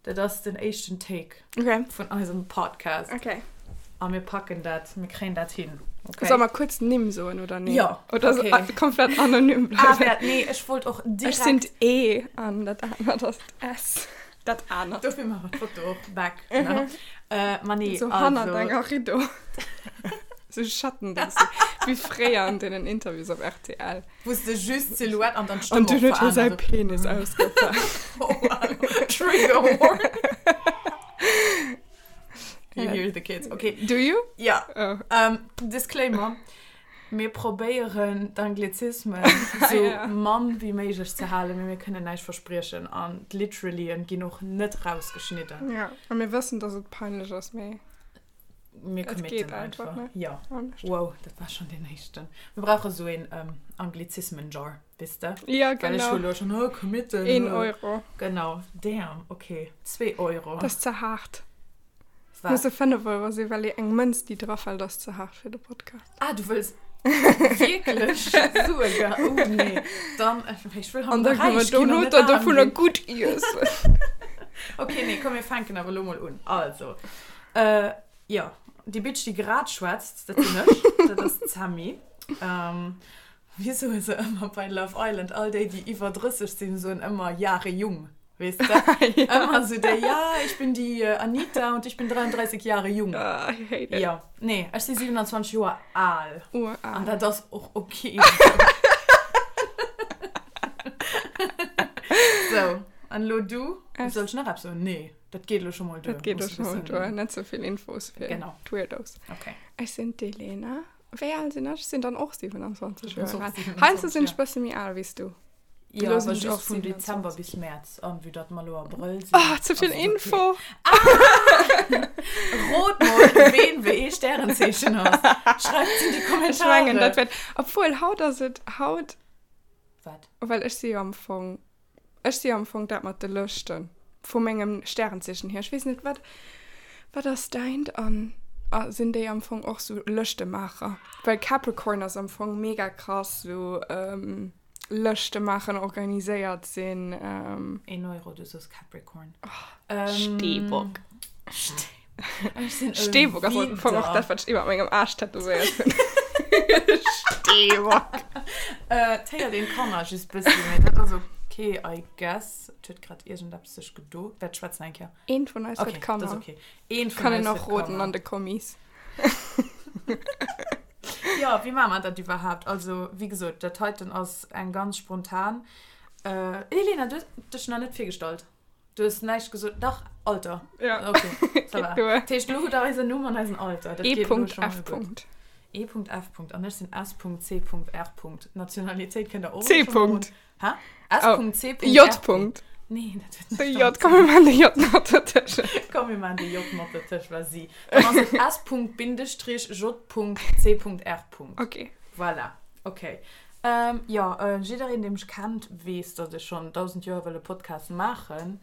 Dat ass den éischten Take okay. vun eisem Podcast. Okay. A mir packen dat, mir kréien dat hin. Okay. Soll mer kuerz Nimm soen oder nee? Ja. Oder okay. so, komplett anonym bleiwen? Ah, wär, nee, ech wollt och direkt... Ech sinn d'E an dat anert ass d'S. Dat anert. Dofir maache mer d'Foto och back. Ne? Äh, ma nee, so also... hannert enger Rideau. so Schatten, wéi fréier an deenen Interviews op rtl. Wou s de just d'Silhouette an dann d'Stëmm An dunn huet hie säi Penis ausgepaakt. Oh, wow. Trigger warning. You hear the kids. Okay. Do you? Ja. Oh. Um, Disclaimer. Mir probéieren d'Anglizismen sou Ja. mann wéi méiglech ze halen, mee mir kënnen näischt verspriechen an d'Literallyen ginn och net rausgeschnidden. Ja, a mir wëssen, dass et peinlech ass, mee Mir Et committen geet einfach, einfach. ne? Ja. Anescht. Wow, dat war schon den éischten. Mir brauche sou een ähm, Anglizismen-Jar, weess de? Ja, Well ech genau. hu lo schon, oh, committen. Een oh. Euro. Genau. Damn, okay. Zwee Euro. Dat ass ze haart. Wat? Musse 5 Euro sinn, well eng Mënz, déi drafält, ass ze haart fir de Podcast. Ah, du wëlls wierklech Sue ge. Oh nee. Dann, ech wëll An haut da kënne mer räich ginn an dono net der aarm dovunner ginn. gutt iessen. Okay, nee, komm, mir fänken awer lo mol un. Also, Äh, jo, déi Bitch, déi grad schwätzt, dat sinn ech, dat ass d'Sammy. Ähm, wéi soe se ëmmer bei Love Island, all déi, déi iwwer 30 sinn, soen ëmmer Jahre jung, weess de? Ja. Ëmmer sou déi, ja, ich bin die Anita und ich bin 33 Jahre jung. Ah, I hate it. Jo, nee, ech si 27 Joer al. Ural. An dat ass och ok. Sou, an elo du? Soll ech nach eppes soen? Nee. Dat geet elo scho mol duer. Dat geet elo scho mol duer. Net sou vill Infos fir genau. d'Weirdos. Okay. Ech sinn d'Elena. Wéi al sinn ech? Ech sinn dann och 27 Joer al. Heiansdo sinn ech bësse méi al wéi s du. Jo, Elo sinn awer ech just och vun 27. Dezember bis Mäerz. An vue datt mer elo Abrëll sinn. Oh, ze vill ass et okay. Info! Rot mol, ween wéi ee Stärenzeechen ass. Schreift et in déi Ech mengen, Kommentare. dat wäert. Obwuel, haut ass et haut. Wat? Well ech si jo am Fong. Ech si am Fong dat mat de Lëschten, vu mengem Stärenzeechen hier. Ech weess net, wat, wat ass däint? An sinn déi am Fong och sou Lëschtemaacher? Well Capricorn ass am Fong mega krass sou Lëschte maachen, organiséiert sinn. Een Euro, du sos Capricorn. Steebock. Ech sinn e Steebock ass am Fong och Widder. dat, wat ech iwwer mengem Aarsch tätowéiert hunn. Steebock. Äh, 't héiert een d'Kanner just bëssi, mee dat ass ok, I guess. Et huet grad iergendeppes sech gedo. Wäert schwätzen eng Kéier. Eent vun eis huet Okay, dat Kanner. ass ok. Eent vun Kann een eis och huet roden Kanner. an de Kommis. Jo, wéi maache mer dat iwwerhaapt? Also, wéi gesot, dat heiten ass eng ganz spontan. Äh, Elena, du hues dech nach net virgestallt. Du hues näischt gesot. Dach, Alter. Ja. Okay, ça va. Geet duer. Dat heescht, elo hutt der eisen Numm an eisen Alter. Dat geet elo scho mol E.F. gutt. E.F. An ech sinn S.C.R. Nationalitéit kënnt der och C. elo scho mol un. Hä? Oh. S.C.R. J. Nee, dat huet De näischt J. domat ze Komm, mir maachen de J mat dertëschent. Komm, mir maachen de J mat dertëscht, vas-y. Dann ass et S.-J.C.R. Okay. Voilà. Okay. Ähm, jo, jiddereen, dee mech kennt, weess, datt ech schonn 1000 Joer wëll e Podcast maachen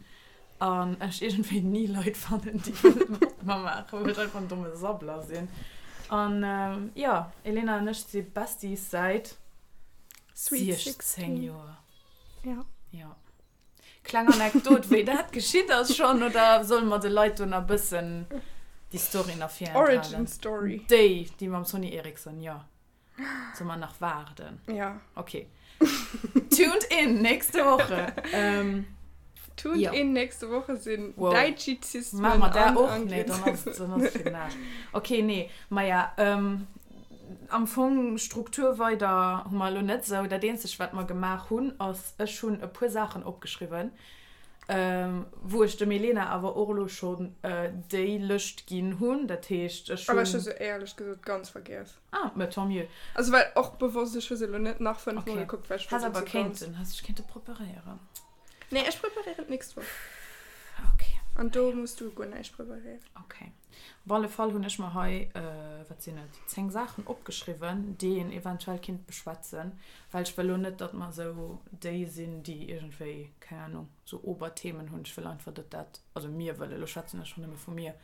an ech iergendwéi ni Leit fannen, déi wëlle mat mer maachen, well ech einfach en domme Sabbler sinn. An jo, Elena an ech si Besties säit Sweet 16 16. Joer. Ja. Jo. Kleng Anekdot, wéi dat geschitt ass schonn, oder solle mer de Leit do nach bëssen déi Story nach virenthalen? Origin Story. Déi, déi mam Sony Ericsson, jo. Soll mer nach waarden? Ja. Okay. Tuned in nächste Woche. Ähm, Tuned ja. in nächste Woche sinn Wow. Däitschizismen Machen wir da an och? Nee, dann ass, dann ass fir den Aarsch. Okay, nee. Maja, ähm, am Fong Struktur weider hu mer elo net sou. Dat eenzegt, wat mer gemaach hunn, ass, ech hunn e puer Saachen opgeschriwwen, ähm, wou ech dem Elena awer och elo schonn äh, déi Lëscht ginn hunn. Dat heescht, ech Aber ech hu hunn. se éierlech gesot ganz vergiess. Ah, mais tant mieux. Also well och bewosst, ech hu se elo net nach 5 Mol Okay. gekuckt, well ech Häss wollt awer se ganz. kéinten, häss dech kéinte preparéieren. Nee, ech preparéieren d'nächst Woch. Okay. An do muss du guer näischt preparéieren. Okay. Op alle Fall hunn ech mer hei, wat sinn et, 10 Saachen opgeschriwwen, déi een eventuell kinnt beschwätzen, well ech wëll lo net, datt mer esou déi sinn, déi iergendwéi, keng Ahnung, sou Oberthemen hunn. Ech wëll einfach, datt dat, also mir wëllen, elo schwätzen ech schonn nëmme vu mir,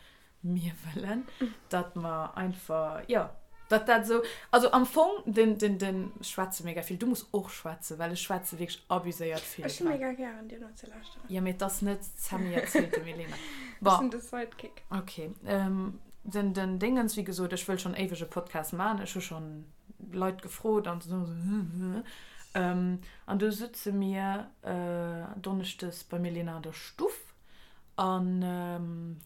Mir wëllen, datt mer einfach, jo, Datt dat esou, also am Fong, den, den, den, ech schwätze mega vill, du muss och schwätzen, well ech schwätze wierklech abuséiert vill. Ech hu mega gären dir nozelauschteren. Jo, mee et ass net d'Sammy erzielt dem Elena. Ech sinn de Sidekick. Ok. Den, den Dingens, wéi gesot, ech wëll schonn éiweg e Podcast maachen, ech hu schonn Leit gefrot an esou, an du sutze mir donneschdes beim Elena an der Stuff. An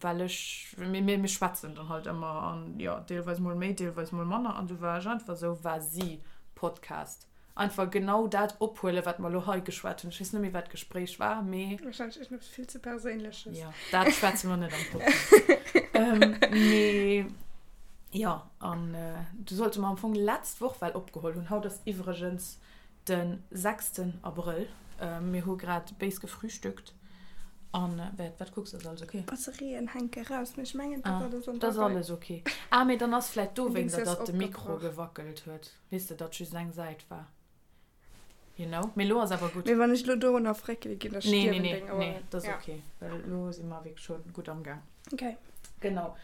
well ech, mir, mir schwätzen dann halt ëmmer an jo, deelweis mol méi, deelweis mol manner. An du war ech einfach esou, Vas-y, Podcast. Einfach genau dat ophuelen, wat mer elo hei geschwat hunn. Ech weess net méi, wat d'Gespréich war, mee. Wahrscheinlech iergendeppes vill ze Perséinleches. Jo, dat schwätze mer net am Podcast. Mee jo, an du sollte mer am Fong letzt Woch well opgeholl hunn. Haut ass iwwregens Den sechsten Abrëll. Mir hu grad béis gefrühstückt an wat, wat kucks, ass alles ok? D'Batterien hänke raus, mee ech mengen dat ass alles an der Rei. Dat ass alles ok. Ah mee dann ass vläit dowéinster datt de Mikro gewackelt huet, weess de, datt just eng Säit war, you know. Mee lo ass awer gutt. Mee wann ech lo dorunner fréckele ginn, da stierwen deng Oueren. Nee, nee, nee, dat ass ok, well lo si mer wierklech scho gutt am Gaang. Ok. Genau.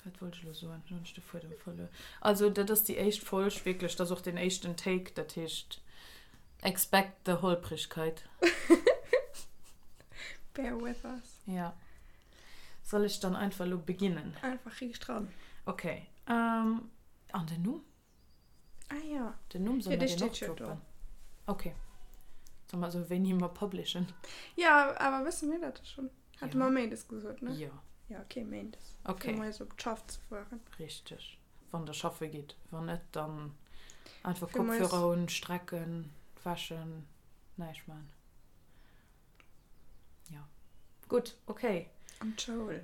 Wat wollt ech elo soen? Elo hunn ech de Fuedem verluer. Also dat ass déi éischt Folg wierklech, dat ass och deen éischten Take, dat heescht expect the Holprigkeit. Bear with us. Ja. Soll ech dann einfach elo beginnen? Einfach riicht ran. Okay. An den Numm? Ah ja. Den Numm soll mer deen och droppen? Okay. Soll mer esou wéini mer publishen? Ja, awer wësse mir dat da schonn? Hate mer Méindes gesot, ne? Jo. Ja, okay, Méindes. Okay. Fir moies op d'Schaff ze fueren. Richteg. Wann der schaffe gitt. Wann net, dann einfach Kopfhörer un, strecken, wäschen, näischt man. Ja. Gutt, okay. An d'Schoul.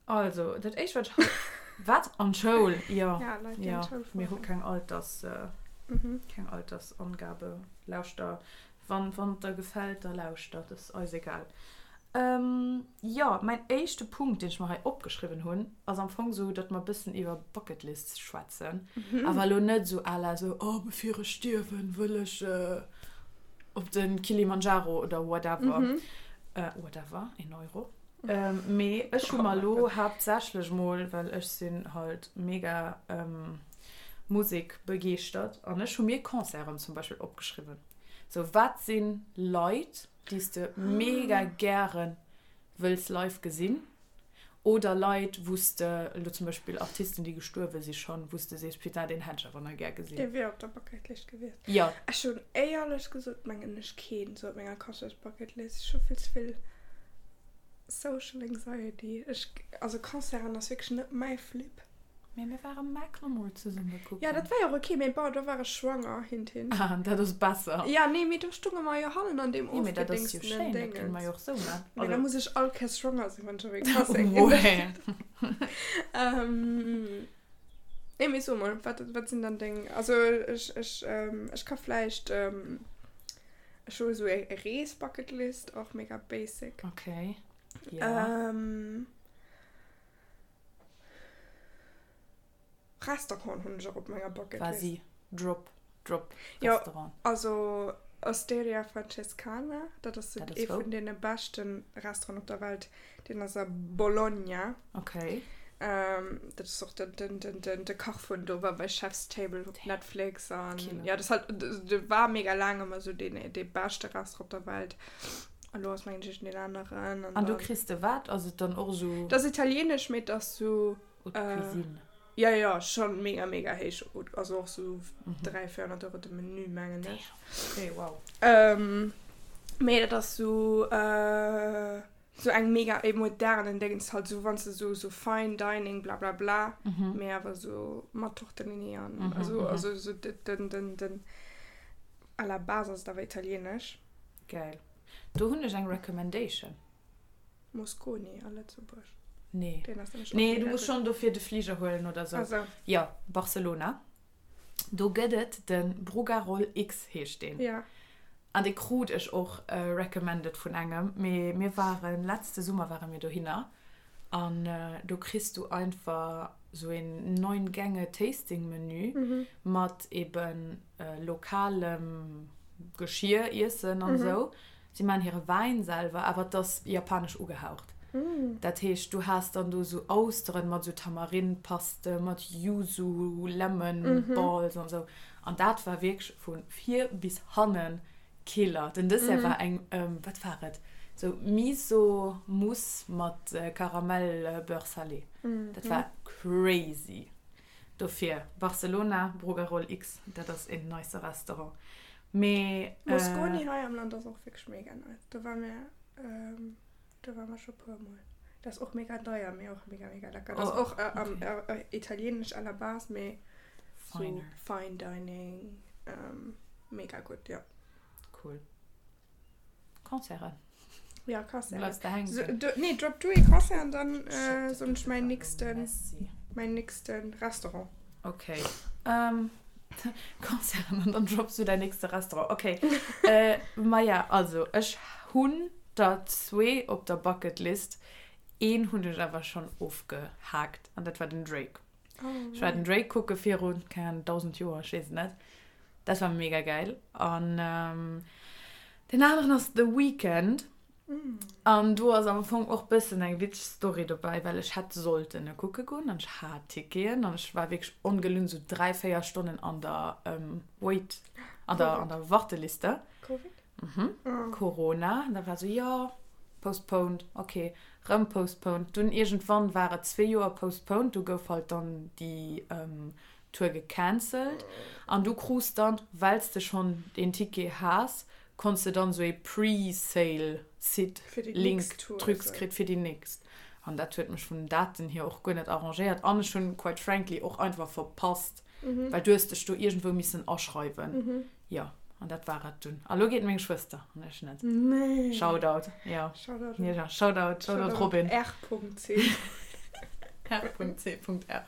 Also, dat éischt, wat ech hei. Wat? An d'Schoul? Jo. Ja, Leit, déi an d'Schoul fueren. Mir hu keng Alters, keng Altersangabe. Lauschter, wann, wann et der gefält, da lauschter. Dat ass eis egal. Jo, mäin éischte Punkt, deen ech mer hei opgeschriwwen hunn, ass am Fong esou, datt mer e bëssen iwwer Bucketlists schwätzen. Awer elo net esou à la esou, oh, bevir ech stierwen, wëll ech op de Kilimanjaro oder whatever. Whatever, een Euro. Mee ech hu mer elo haaptsächlech mol, well ech sinn halt mega Musek-begeeschtert an ech hu mir Concerten zum Beispill opgeschriwwen. Sou, wat si Leit, déi s de mega gäre wëlls live gesinn oder Leit, wou s de, elo zum Beispill Artisten, déi gestuerwe si schonn, wou s de sees, putain, deen hätt ech awer nach gär gesinn. Dee wier op der Bucketlist gewiescht. Jo. Ech hunn éierlech gesot, mengen ech, keen esou op menger Concerts-Bucketlist. Ech hu vill ze vill Social Anxiety. Ech, also Concerten ass wierklech net mäi Flip. Mee mir ware Macklemore zesumme kucken. Ja, dat war jo och ok, mee bon, do war ech schwanger, hint, hint. Ah, dat ass besser. Ja, nee, mee do stunge mer jo hannen an deem Nee, mee dat ass jo ofgedingstenen schéin, dat kënne mer Dingens. jo och sou man. Mee da Also. muss ech all Kéiers schwanger sinn, wann ech op ee Concert ginn. Ouais. Ähm, nee, mee so mol, wat, wat sinn dann deng, also ech, ech, ech ka vläicht, ech hu esou e Rees-Bucketlist, och mega basic. Okay, ja. Ähm. Restaurant hunn ech och op menger Bucket List. Quasi drop, drop Jo, Restaurant. also Osteria Francescana, dat ass Dat ass ee wou? vun deene beschte Restauranten op der Welt. Deen ass a Bologna. Okay. Dat ass och den, den, den, den, de Kach vun do war bei Chef's Table op Netflix an Killer. ja, dat ass halt, de war mega laang ëmmer esou deen, dee beschte Restaurant op der Welt. An lo ass mengen ech deen aneren. An do kriss de wat? Ass et dann och esou. Dat ass italienesch, mee et ass sou. Haute Cuisine. Jo, jo, schonn mega, mega héich. Also och sou 300, 400 Euro de Menü, mengen ech. Okay, wow. Mee dat ass sou, sou eng mega e modernen Déngens halt, sou wann s de sou, sou Fine Dining bla bla bla, mee awer sou mat Tortellini an also, also sou den, den, den, à la base ass et awer italienesch. Geil. Do hunn ech eng Recommendation. Mosconi a Lëtzebuerg. Nee. Deen ass nämlech och Nee, du mega muss gutt. schonn dofir de Fliger huelen oder sou. Ah sou. Jo, Barcelona. Do gëtt et de Brugarol X heescht deen. Ja. An dee krut ech och recommended vun engem. Mee mir waren, letzte Summer ware mir dohinner an do kriss du einfach sou een 9 Gänge Tasting Menü mat eben lokalem Geschir, Iessen an esou. Si maachen hire Wäin selwer, awer et ass japanesch ugehaucht. Dat heescht, du has dann do sou Austeren mat sou Tamarin-Paste, mat Yuzu, Lemon Balls an sou. An dat war wierklech vu vir bis hannen Killer. Den Dessert war eng, wat war et, sou Miso Mousse mat Karamell Beurre salé. Dat war crazy. Dofir Barcelona, Brugarol X, dat ass een nice Restaurant. Mee. Mosconi hei am Land ass och wierklech mega nice. Do ware mir, do ware mer scho puer mol. Dat ass och mega deier, mee och mega mega lecker. Dat ass och italieenesch à la base, mee sou fine dining, mega gutt, jo. Cool. Concerten. Ja, Concerten. Bleifs de hänken? So, du, nee, drop du ee Concert an dann äh, soen ech mäin nächsten, mäin nächsten Restaurant. Okay. Ähm, Concerten an dann drops du däin nächste Restaurant. Okay. äh, Maja, also, ech hunn der zwee op der Bucketlist. Een hunn ech awer schonn ofgehaakt an dat war den Drake. Oh, Ech war den Drake kucke virun, keng Ahnung, 1000 Joer, ech weess et net. Dat war mega geil. An ähm, den aneren ass The Weeknd. Mm. An do ass am Fong och bëssen eng witzeg Story dobäi, well ech hätt sollten e kucke goen an ech hat Ticketen an ech war wierklech ongelunn sou 3, 4 Stonnen an der ähm, Wait, an der, an der Warteliste. Covid? Mhm. Oh. Corona. An da war sou, jo, postponed, okay, rëm postponed. Dunn iergendwann war et zwee Joer postponed, du gouf halt dann déi ähm, Tour gecancelt an du krus dann, wells de schonn deen Ticket has, konns de dann sou ee Pre-Sale Site Link Trucs kritt fir déi nächst. An dat huet mech vun den Daten hier och guer net arrangéiert an ech hunn quite frankly och einfach verpasst, well du hues dech do iergendwou missen aschreiwen. Jo, an dat war et dunn. A lo geet meng Schwëster an ech net. Shoutout, jo. Shoutout, Shoutout Robin. R.C. R.C. R.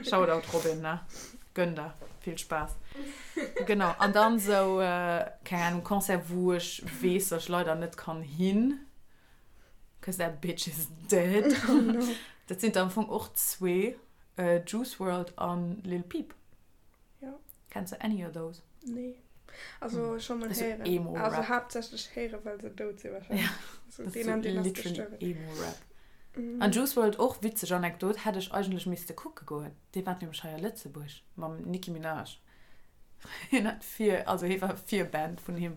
Shoutout Robin, ne? Gönn der. Vill Spaass. Genau, an dann sou, keng Ahnung, Concert wou ech weess, dass ech leider net kann hin, cause that bitch is dead. Oh no. Dat sinn der am Fong och zwee, Juice Wrld an Lil Peep. Ja. Kenns de any of those? Nee. Also hm. schon mal héieren. Emo -Rap. Also haaptsächlech héieren, well se dout sinn wahrscheinlech. Ja. Also, das den an den ass gestuerwen. Emo-Rap. Mm. An Juice WRLD och witzeg Anekdot, hätt ech eigentlech misste kucke goen. Dee war nämlech hei a Lëtzebuerg mam Nicki Minaj. Hien hat vir, also hie war Virband vun him.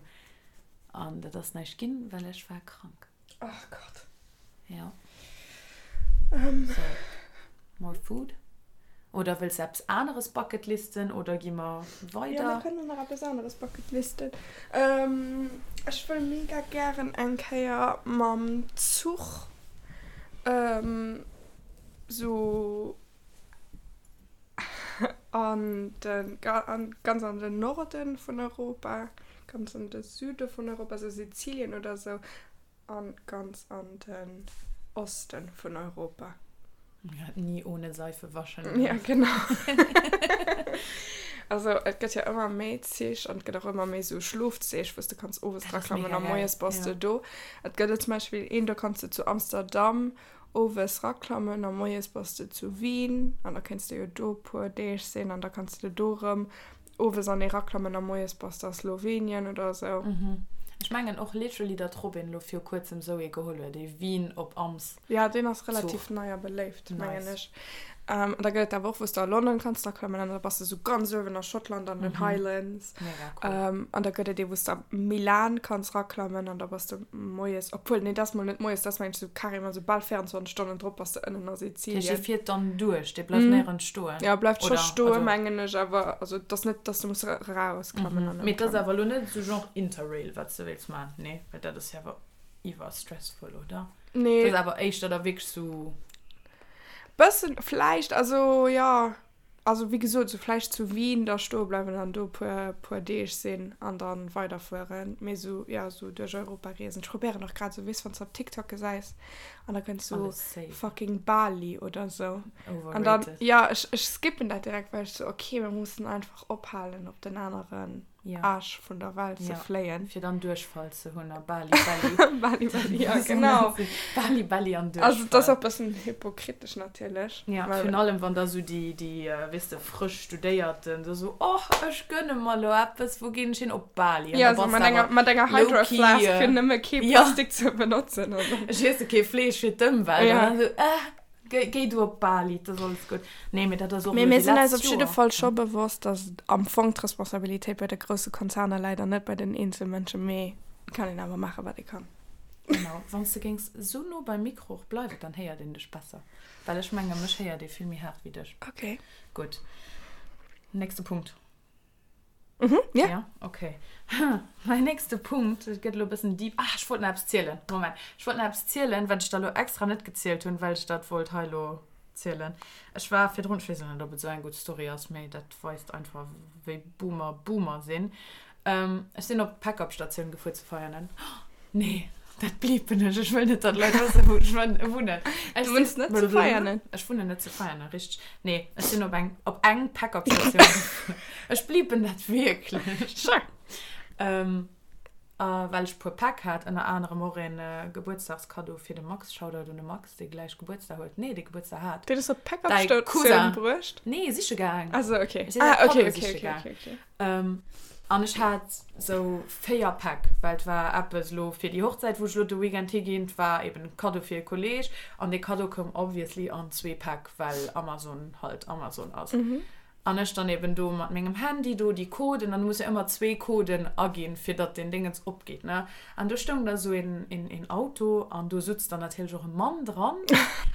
An dat ass näischt ginn, well ech war krank. Ach Gott. Ja. Um. So. More food? Oder wëlls de eppes aneres bucketlisten oder gi mer weider? Ja, mir kënnen nach eppes aneres bucketlisten. Ähm, ech wëll mega gären eng Kéier mam Zuch ähm, sou an den, an, ganz an den Norden vun Europa, ganz an de Süde vun Europa, sou Sizilien oder sou, an ganz an den Osten vun Europa. Ja, nie ohne Seife waschen. Ja, genau. Also et gëtt jo ëmmer méi Zich an et gëtt och ëmmer méi sou Schlofzich, wou s de kanns owes Dat ass draklammen mega a geil, moies bass ja. de do. Et gëtt et zum Beispill een, do kanns de zu Amsterdam Owes raklammen a moies bass de zu Wien an da kéints de jo do puer Deeg sinn an da kanns de do rëm owes an ee raklammen a moies bass de a Slowenien oder esou. Ech mengen och literally datt Robin lo viru kuerzem sou ee geholl huet, ee Wien op Ams Ja, deen ass relativ Zuch. nei a beléift, mengen Nice. ech. An da gëtt et awer och wou s de a London kanns raklammen an da bass de sou ganz uewen a Schottland an den Highlands. Mega cool. An da gëtt et ee wou s de a Milan kanns raklammen an da bass de moies, obwuel nee dat ass mol net moies, dat ass mengen ech sou carrément sou bal 24 Stonnen drop bass de ënnen a Dat heescht, dee Sizilien. fiert dann duerch, dee bleift néierens stoen? Jo, bleift scho Oder, stoen, also. mengen ech, awer also et ass net, dass de muss erausklammen an Mee et ass ëmklammen. awer elo net esou genre Interrail, wat s de wéilts maachen, nee? Well dat ass jo awer iwwer stressful, oder? Nee. Dat ass awer éischter da wierklech sou. Bëssen vläicht, also jo. Also wéi gesot, sou vläicht zu Wien da stoe bleiwen an do puer puer Deeg sinn an dann weiderfueren. Mee sou, jo, sou duerch Europa reesen. Ech probéieren och grad sou, weess, wann s de op TikTok gesäis an da kënnt sou fucking Bali oder sou. An dann, Overrated. jo, ech ech skippen dat direkt, well ech sou, okay, mir mussen einfach ophalen op den aneren. Aarsch vun der Welt ze fléien. Fir dann Duerchfall ze hunn a Bali Belly. Bali Belly, ja genau. Bali Belly an Duerchfall. Also et ass och e bëssen hypokritesch natierlech. Ja, virun allem wann da sou déi, déi, weess de, frësch Studéierten da sou, Och, ech gönne mer elo eppes, wou ginn ech hin? Op Bali. An da bass de awer mat enger Hydro Flask, fir nëmme kee Plastik ze benotzen. Ech iesse kee Fleesch fir d'Ëmwelt. An dann sou, äh. Géi du op Bali, et ass alles gutt. Nee, mee dat ass och Mee elo mir déi sinn eis letzt op jidde Joer. Fall scho bewosst, dass am Fong d'Responsabilitéit bei de grousse Konzerner läit an net bei den Eenzelmënschen. Mee et kann een awer maachen, wat ee kann. Genau. Wann s de géings esou no beim Mikro och bleiwen, dann héiert een dech besser. Well ech menge mech héiert ee vill méi haart wéi dech. Okay. Gutt. Nächste Punkt. Mhm, ja. Ja, okay. Mäin nächste Punkt, et gëtt elo e bëssen deep. Ah, ech wollt nach eppes zielen. Moment. Ech wollt nach eppes zielen, wat ech der elo extra net gezielt hunn, well ech dat wollt hei elo zielen. Ech war virdrun, ech weess elo net, ob et esou eng gutt Story ass, mee dat weist einfach, wéi Boomer Boomer sinn. Ech sinn op d'Pack-up-Statioun gefuer zu Veianen. Nee, dat bliipen ech. Ech wëll net, datt Leit wëssen, wou ech wunnen. Du wunns net zu Veianen? Ech wunnen net zu Veianen, richteg. Nee, ech sinn op eng, op eng Pack-up-Statioun gefuer. Ech bliipen dat wierklech. Sure. Ähm, a well ech e puer Päck hat, ënner anerem och een Gebuertsdagskaddo fir de Max, Shoutout un de Max, dee gläich Gebuertsdag huet, nee, dee Gebuertsdag hat. Deen hues du op d'Pack-up-Statioun bruecht? Nee, siche gaang. Ah sou, okay. Ech sinn säi Ah, okay, Kaddo okay, siche okay, gaang. okay, okay. An ech hat sou 4 Päck, well et war eppes elo fir déi Hochzäit, wou ech elo de Weekend higinn, et war eben e Kaddo fir e Kolleg an dee Kaddo koum obviously an zwee Päck, well Amazon halt Amazon ass. An ech dann eben do mat mengem Handy do déi Coden, an du muss jo ëmmer zwee Coden aginn, fir datt deen Déngens opgeet, ne. An do stoung da sou een, een Auto an do sutz dann natierlech och e Mann dran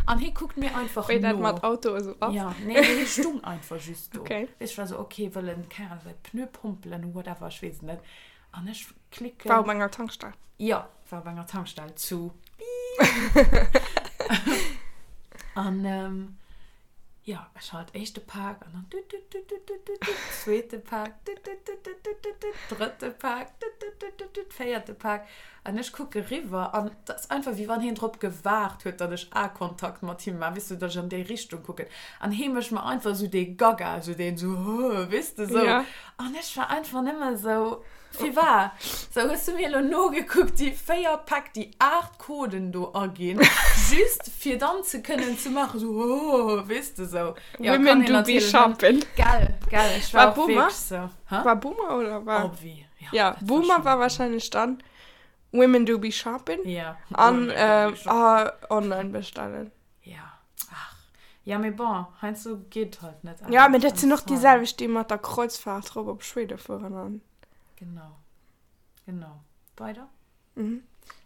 an hie kuckt mir einfach Wéi dat no. mat Auto esou ass. Ja, nee, mee hie stung einfach just do. Okay. Weess, ech war sou, okay, wëll en, keng Ahnung, säi Pneu pompelen, whatever, ech weess et net. An ech klicken. War op enger Tankstell. Jo, war op enger Tankstell zu Piip. An jo, ech halt éischte Pak an dann tut tut tut tut tut tut tut, zweete Pak, tut tut tut tut tut tut tut, drëtte Pak, tut tut tut tut tut, véierte Pak. An ech kucke riwwer an et ass einfach, wéi wann hien drop gewaart huet, datt ech Aekontakt mat him maachen, weess du, datt ech an déi Richtung kucken. An hie mécht mer einfach esou dee Gaga, esou deen esou, hö, weess de, esou. Ja. An ech war einfach nëmme esou, Firwat? Sou, hues du mir elo nogekuckt, déi 4 Päck, déi 8 Coden do aginn, just fir dann ze kënnen ze maachen, esou, hö, weess de, esou. Ja, kann Women een do be natierlech net. shopping. Gell, gell, ech war War och Boomer? wierklech esou. Hä? War Boomer oder war? Obvi. Ja, ja Boomer war wahrscheinlich dann Women do be shopping. Ja. An äh, ah, online bestellen. Ja. Ach. Ja, mee bon, heiansdo geet halt net Ja, mee dat sinn och déi selwecht, déi mat der Kreuzfahrt rop op Schwede fueren an. Genau. Genau. Weider? Mhm.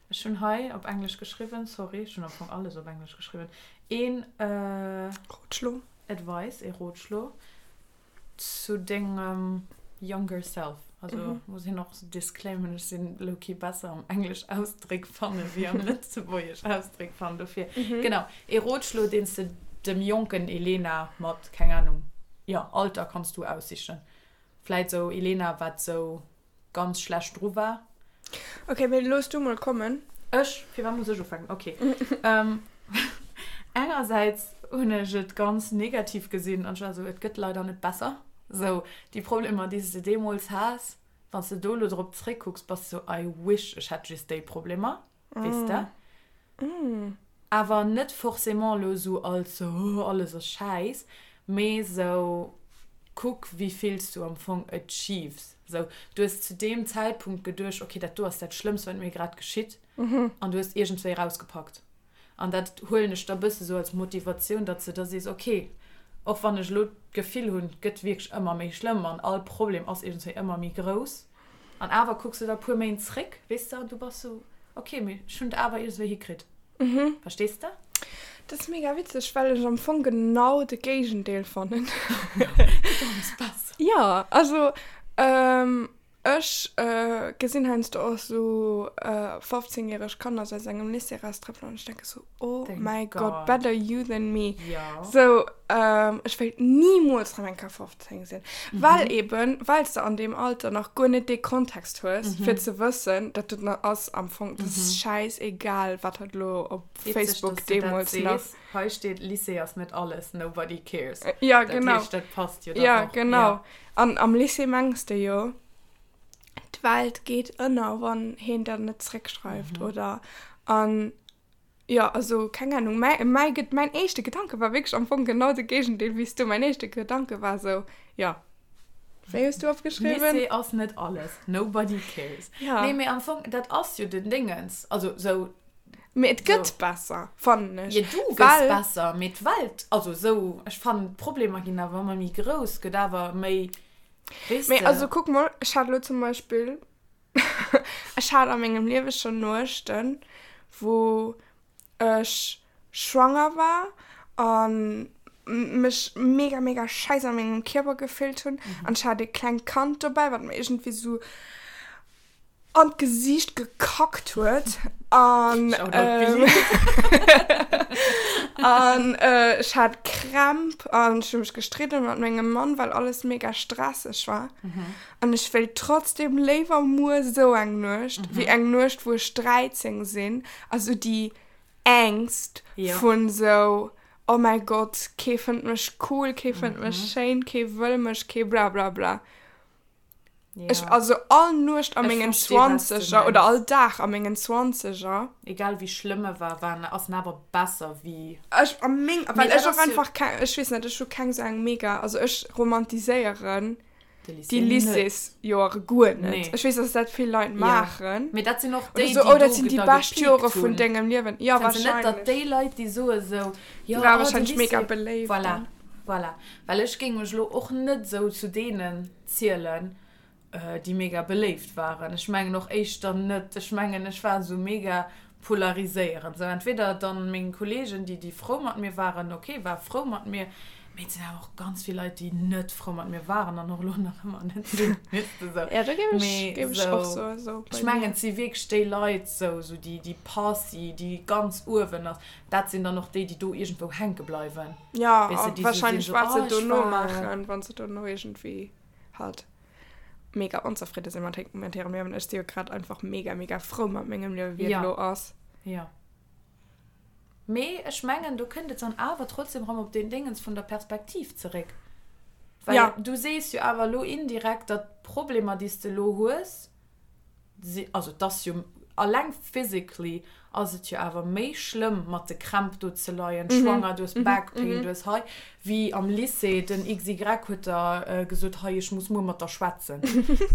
Ech hunn hei op Englesch geschriwwen, sorry, ech hunn am Fong alles op Englesch geschriwwen, een äh, Rotschlo. Advice, ee Rotschlo. Zu dengem younger self, also muss een och disclaimen, ech sinn lowkey besser am englesch Ausdréck fanne wéi am lëtzebuergesch Ausdréck fannen, dofir genau, ee Rotschlo deen s de dem jonken Elena mat, keng Ahnung, jo Alter kanns du aussichen, vläit sou Elena wat sou ganz schlecht dru war. Ok, mee looss du mol kommen. Ech? Firwat muss ech ufänken? Ok. Engersäits hunn ech et ganz negativ gesinn an ech war esou, et gëtt leider net besser. Esou, déi Problemer, déi s de deemools has, wann s de do elo drop zréckkucks, bass de sou, I wish ech hätt just déi Problemer, weess de? Awer net forcément elo esou als oh alles ass schäiss, mee esou kuck wéi vill s du am Fong achieves. Esou du hues zu deem Zäitpunkt geduecht, okay dat do ass dat Schlëmmst wat mir grad geschitt an du hues iergendswéi erausgepackt. An dat huelen ech da bësse sou als Motivatioun, datt s de da sees, okay och wann ech elo d'Gefill hunn, et gëtt wierklech ëmmer méi schlëmm an all Problem ass iergendswéi ëmmer méi grouss, An awer kucks de da puer Méint zréck, weess de, an du bass sou, ok, mee ech hunn et awer iergendwéi hikritt. Verstees de? Dat ass mega witzeg, well ech am Fong genau de Géigendeel fannen. Gëtt alles besser. Jo, also ech gesinn heiansdo och sou 15 järeg Kanner sou aus engem Lycée eraustrëppelen an ech denke sou, Oh Thank my God, God. better you than me. Ja. So, ähm, ech wéilt nimools rem eng Kéier 15 sinn. Well eben, well s de an deem Alter nach guer net dee Kontext hues, fir ze wëssen, dat dat na ass am Fong, dat ass schäisegal, wat hatt elo op Witzeg, Facebook dass du dat deemools nach. sees. Hei steet, Lycée ass net alles, nobody cares. Ja, Dat genau. heescht, dat passt jo dann Ja, och. genau. Ja. An am Lycée mengs de jo. D'Welt geet ënner, wann heen der net zréckschreift, oder? An jo, also keng Ahnung, mäi, mäi, mäin éischte Gedanke war wierklech am Fong genau de Géigendeel wéi s du. Mäin éischte Gedanke war esou, jo, wéi hues du opgeschriwwen? Lycée ass net alles, nobody cares. Ja. Nee, mee am Fong, dat ass jo den Dingens, also sou. Mee et gëtt besser, fannen ech. Jo, du gëss besser, mee d'Welt, also sou, ech fannen d'Problemer ginn awer ëmmer méi grouss, gëtt awer méi, weess de. Mee also kuck mol, ech hat elo zum Beispill, ech hat a mengem Liewe schonn Nuechten, wou ech schwanger war a mech mega, mega scheiss a mengem Kierper gefillt hunn an ech hat e klengt Kand dobäi, wat mer iergendwéi sou an d'Gesiicht gekackt huet an an ech hat Krämp an ech hu mech gestridden mat mengem Mann, well alles mega stresseg war. An ech wéilt trotzdem léiwer muer sou eng Nuecht, wéi eng Nuecht, wou ech 13 sinn a sou déi Ängst vun sou, oh mäi Gott, kee fënnt mech cool, kee fënnt mech schéin, kee wëll mech, kee blablabla. Ja. Ech, also all Nuecht a Ech mengen versteh, was du Zwanzeger oder mengs. all Dag a mengen Zwanzeger. Egal wéi schlëmm e war, war en, ass en awer besser wéi. Ech a meng, Mee well dat ech och ass jo. einfach keng, ech weess net, ech hu keng sou eng mega, also ech romantiséieren De déi Lycée net. Lycéesjoere guer net. Nee. Ech weess, dass dat vill Leit Ja. maachen. Mee dat sinn och Oder déi, sou, déi oh, dat do sinn déi da bescht gepiekt Jore vun hunn. dengem Liewen. Ja, Fënns de net, datt wahrscheinlech. déi Leit, déi soe sou, Déi jo, ware oh, de wahrscheinlech mega Lycée. beléift Voilà, dann. voilà. Well ech géing mech elo och net sou zu deenen zielen, déi mega beléift waren. Ech mengen och éischter net. Ech mengen, ech war esou mega polariséierend. Sou entweder dann meng Kollegen, déi, déi frou mat mir waren, ok, war frou mat mir, mee et sinn awer och ganz vill Leit, déi net frou mat mir waren an och elo nach ëmmer net sinn, weess de sou. Ja, do géif ech, Mee géif ech och sou, soen, sou ech bei mir. mengen, et si wierklech déi Leit, sou, sou déi, déi Posse, déi ganz uewen ass, dat sinn dann och déi, déi do iergendwou hänke bleiwen. Ja, Weess de, a déi sou sinn, wahrscheinlech sou, wat se oh, ech dono war. maachen, wann se dono iergendwéi halt mega onzefridde sinn mat mat hirem Liewen. Ech si jo grad einfach mega, mega frou mat mengem Liewen, wéi et Ja. elo ass. Ja. Mee ech mengen, do kënnt et dann awer trotzdem erëm op deen Déngens vun der Perspektiv zeréck. Well Ja. du sees jo awer elo indirekt, datt d'Problemer, déi s de elo hues, si, also et ass jo alleng physically ass et jo awer méi schlëmm mat de Krämp do ze leien, schwanger, du hues Back pain, du hues hei, wéi am Lycée, den XY huet der gesot, hei ech muss muer mat der schwätzen,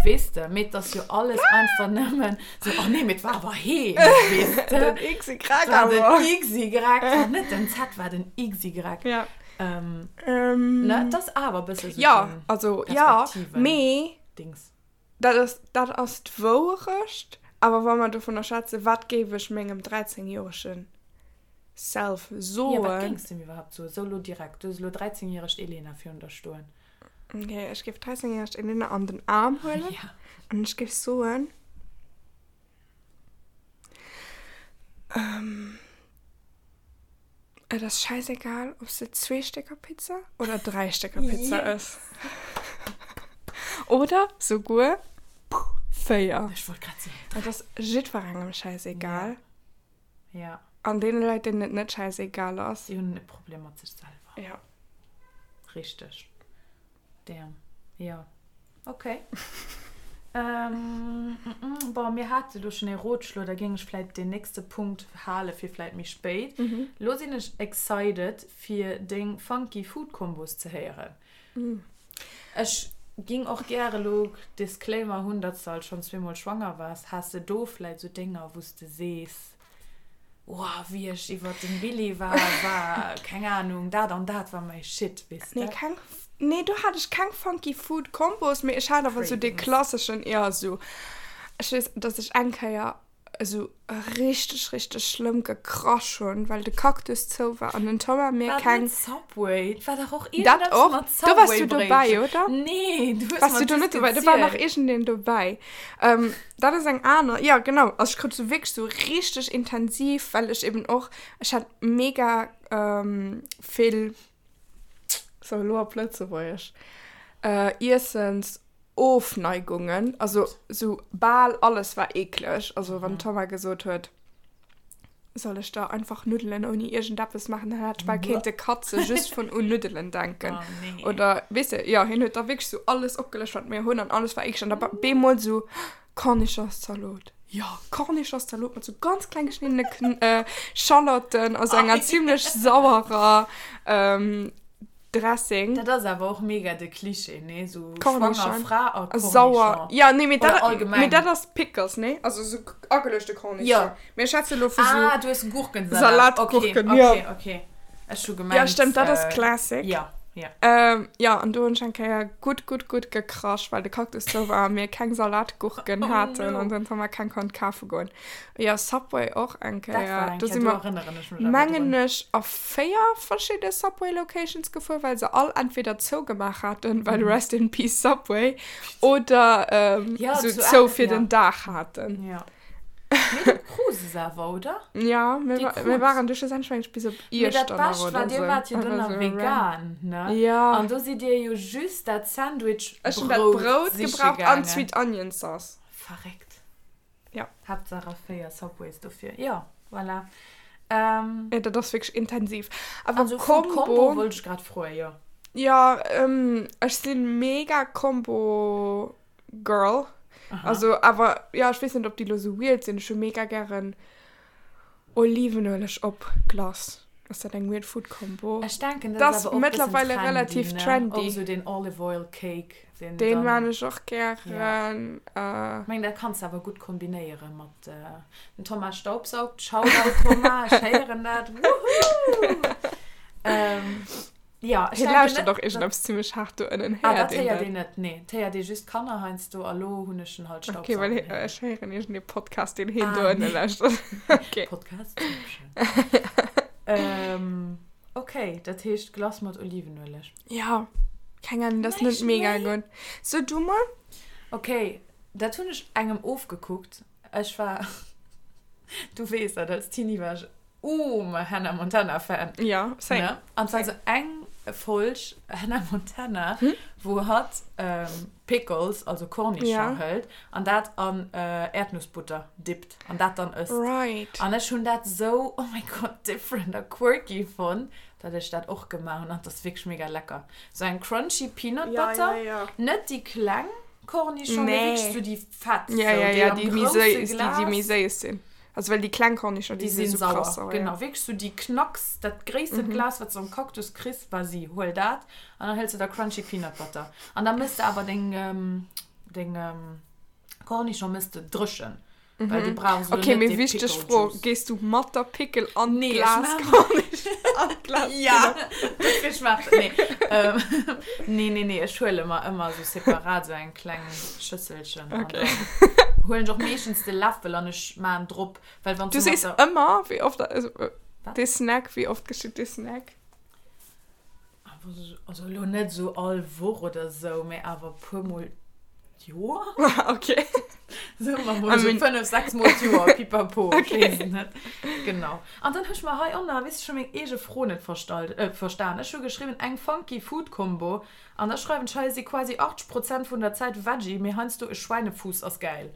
weess de, mee et ass jo alles einfach nëmmen sou, oh nee, mee et war awer heen, weess de. Den XY War den awer. XY, war net den Z, war den XY. Ja. Ne, et ass awer e bësse sou Ja, den also ja, Perspektiven mee. Dings. Dat ass, dat ass d'Wouerecht. Awer wa mer dovunner schwätzen, wat géif ech mengem 13 joerege Self soen? Jo, wat géings de em iwwerhaapt soen? Sou elo direkt, du hues elo 13 järegt Elena virun der stoen. Ok, ech géif 13 järegt Elena an den Aarm huelen an ech géif soen, Et ass scheißegal, ob s de zwee Stécker Pizza oder dräi Stécker Pizza ëss. Oder souguer véier. Ech wollt grad soen, dräi. Et ass jiddwerengem scheißegal. Ja. An deene Leit, deenen et net scheißegal ass. Déi hunn e Problem mat sech selwer. Ja. Richteg. Damn. Jo. Ok. Ähm, bon, mir hate lo schonn ee Rotschlo, da géing ech vläit deen nächste Punkt hale fir vläit méi spéit. Lo sinn ech excited, fir deng funky Food Combos ze héieren. Ech ging och gäre lo, Disclaimer, hunn, datt s de alt schonn zweemol schwanger waars. Has de do vläit sou Dénger, wou s de sees, Woah, wéi ech iwwert dem Billy war, war, keng Ahnung, dat an dat war mäi Shit, weess de? Nee, keng, nee, do hat ech keng funky Food Combos, mee ech hat awer sou dee Cravings. klasseschen, jo, sou, ech weess, dass ech eng Kéier esou richteg, richteg schlëmm gekrasch hunn, well de Cactus zou war an den Thomas mir War dat keng. net Subway? Et war dach och Dat iergendeppes och. mat Do wars du dobäi, Subway-Bréitchen. oder? Nee, du hues Wars mer du do just net dobäi? Do war nach gezielt. iergendeen dobäi. Ähm, dat ass eng aner, jo genau, also ech krut sou wierklech sou richteg intensiv, well ech eben och, ech hat mega vill, sou elo op Lëtzebuergesch, Iessensofneigungen, also sou bal alles war eekleg, also wann d'Thomas gesot huet, Soll ech da einfach Nuddelen ouni iergendeppes maachen? Dann hätt ech bal kéinte katze just vun un Nuddelen denken. Oh, nee. Oder, weess de, jo, hien huet da wierklech sou alles opgelëscht, wat mir hunn, an alles war eekleg. An da bemol sou. Cornichonszalot. Jo, Cornichonszalot mat sou ganz kleng geschniddene Kn äh, Schalotten a sou enger zimlech sauerer ähm, Dressing. Dat ass awer och mega de Cliché, nee? Sou schwanger Cornichon. Fra a A sauer. Cornichon. Ja, nee, mee Oder dat, allgemeng. mee dat ass Pickles, nee? Also sou ageluechte Cornichon. Jo. Mee ech schwätze lo vu sou. Ah, du hues Gurkensalat. Salatgurken, okay, jo. Okay, okay. Ech hu gemengt. Ja, stëmmt, dat ass Classic. Ja, ja. Ähm, ja, an do hunn ech eng Kéier gutt, gutt, gutt gekrasch, well de Cactus zou war a mir keng Salatgurken Oh haten no. an den Thomas keng konnt kafe goen. Jo, Subway och eng Dat war Kéier. eng Do Kéier, si do mer, erënneren ech mech awer mengen drun. ech, a 4 verschidde Subway Locations gefuer, well se all entweder zougemaach haten, well Rest in Peace Subway, oder ähm, Ja, sou zu zou fir ja. den Dag haten. Ja. Mee du krus es awer, oder? Ja, mir, Déi wa mir krut. waren du schlussendlech mengen ech bis op Mee dat Iechternach Bescht war, oder dir sou. waart jo Einfach dunn nach sou random. vegan, ne? Ja. An do sidd dir jo just dat Sandwich Ech hunn dat Brout Brout siche gebraucht an gaangen. d'Sweet Onion Sauce. Verréckt. Ja. Haaptsaach a 4 Subways dofir. Jo, voilà. Ähm. Ja, dat ass wierklech intensiv. Awer Also Food Combo. Combo wollt ech grad froen, jo. Ja, ähm, ech sinn mega Combo Girl. Aha. Also, awer, ja, ech weess net, ob déi lo sou weird sinn. Ech hu mega gären Olivenueleg op Glace. Ass dat eng weird Food Combo? Ech denken, dat Dat ass ass awer och e bëssen mëttlerweile trendy, relativ ne? trendy. Och sou deen Olive Oil Cake, deen Deen dann. maan ech och Ja. gären. Äh. Ech mengen, dat kanns de awer gutt kombinéiere mat, den Thomas staubsaugt. Shoutout Thomas, ech héieren dat. Woohoo! Ähm. Ja, ech Hie denken lauschtert net, och iergendeppes zimmlech haart do ënnen. Ah, Héiert dat een héiert dat? een net, nee. Et héiert ee just d'Kanner heiansdo a lo hunn ech en halt Okay, well staubsaugen hie, héieren. ech héieren iergendee Podcast, deen hien do Ah, ënne nee. lauschtert. Okay. Podcastception. Ähm, okay, dat heescht Glace mat Olivenueleg. Ja, keng Ahnung, dat ass net Näischt mega méi? gutt. So, du mol? Okay, dat hunn ech engem ofgekuckt. Ech war, du weess dat, als Teenie war ech Ooh, Hannah Montana Fan. Ja, same. Ne? An zwar so eng Folg Hannah Montana, Hm? wou hatt ähm, Pickles, also Cornichon Ja. hëlt an dat an äh, Erdnussbutter dippt an dat dann ësst. Right. An ech hunn dat sou, oh mein Gott, different a quirky fonnt, dat ech dat och gemaach hunn. An dat ass wierklech mega lecker. Sou eng crunchy Peanut Ja, Butter, ja, ja. net déi kleng Cornichon, mee Nee. wierklech sou déi fett, Ja, sou ja, déi ja, am déi méi grousse séiss, déi, déi méi Glas. séiss sinn. Also well déi kleng Kornischong, Déi déi sinn sinn sou krass sauer, sauer, genau. ja. Wierklech sou déi Knacks, dat gréissten Mhm. Glas, wat s de am Cactus kriss, vas-y, huel dat an dann hëls de der Crunchy Peanut Butter. An da mëss de awer deng, deng Kornischong mëss de dréchen, well du Mhm. brauchs elo Okay, net mee dee wichteg Pickle Fro, Juice. Gees du mat der Pickel an Nee, ech d'Glas maachen. Kornischong, an d'Glas Ja, Peanut? dofir schmaacht et, nee. Ähm, nee, nee, nee, ech huele mer ëmmer sou separat sou eng kleng Schësselchen an Okay. dann Huelen ech och meeschtens de Läffel an ech maan drop, well wann Du du sees mat der. ëmmer, wéi oft, also Wat? dee Snack, wéi oft geschitt dee Snack? Also elo net esou all Woch oder esou, mee awer puer mol d'Joer. Ok. Soe mer mol I esou mean. 5, 6 mol d'Joer, pipapo, ech Ok. weess et net. Genau. An dann hu ech mer hei onnner, weess de, scho meng eege Fro net verstallt, verstan. Ech hu geschriwwen, eng funky Food Combo An da schreiwen ech hei, si quasi 80 Prozent vun der Zäit Veggie, mee heiansdo e Schweinefuuss ass gäil.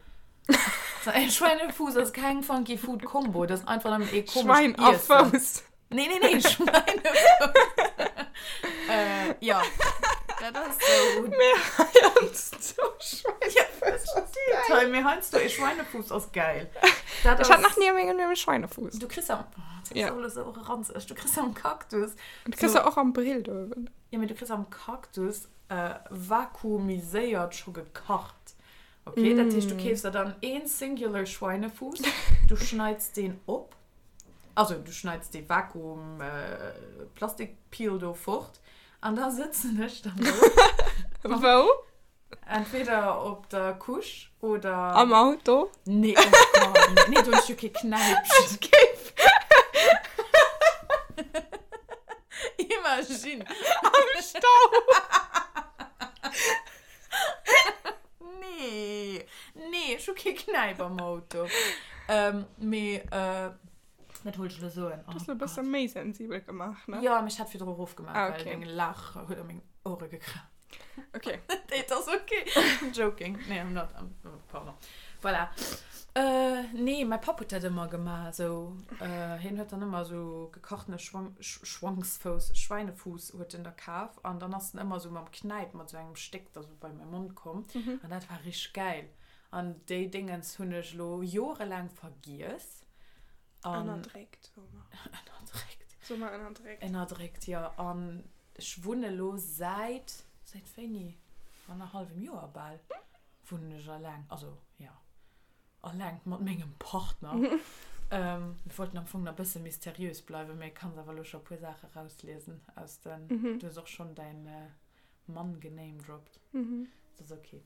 E Schweinefuuss ass keng funky food Combo, dat ass einfach nëmmen ee komescht Schwein a Iessen. Fouss. Nee, nee, nee, Schweinefuuss. Äh, jo, dat ass sou. Mee heiansdo Schweinefuuss ass Steet hei, mee heiansdo e Schweinefuuss ass gäil. Dat Ech hat nach ass. ni a mengem Liewen e Schweinefuuss. Du kriss am, oh, dat ass Ja. och elo sou ranzeg, du kriss am Cactus Du kriss sou. se och am Brill do uewen. Jo, mee du kriss am Cactus vakuumiséiert scho gekacht. Ok, dat heescht du keefs der dann een singular Schweinefuuss, du schneits deen op, also du schneits dee Vakuum Plastikpeel do fort an da sëtzen ech dann do. Wou? Entweder op der Couche oder. Am Auto? Nee, oh Gott, nee, do hunn ech jo kee Knäipchen. Ech géif. Imagine. Am Stau. Nee, nee, ech hu kee Knäip am Auto. Ähm, mee, äh, wat wollt ech elo soen? Du hues elo e bësse méi sensibel gemaach, ne? Jo, mee ech hat virdru erofgemaach, Ah, well okay. deng Laach huet a meng Ouere gekracht. Okay. Nee, et ass okay. I'm joking. Nee, I'm not. I'm, oh, pardon. Voilà. Äh, nee, mäi Papp huet dat ëmmer gemaach. Esou, äh, hien huet dann ëmmer esou gekachtene Schwang, Sch Schwangsfouss, Schweinefuuss huet en da kaf. An dann ass en ëmmer esou mam Knäip mat esou engem Stéck da sou bei mäi Mond komm. An dat war richteg gäil. An déi Déngens hunn ech elo jorelaang vergiess. An Ënnerdréckt, soe mer. Ënnerdréckt. Soe mer ënnerdréckt. Ënnerdréckt, jo. An ech wunne elo säit, säit wéini? Annerhallwem Joer bal wunnen ech alleng. Also, jo, alleng mat mengem Partner. Mir wollten am Fong nach e bësse mysteriös bleiwen, mee kanns awer elo scho e puer Saache rausliesen aus den, du hues och schonn däin Mann genamedroppt. Dat ass ok.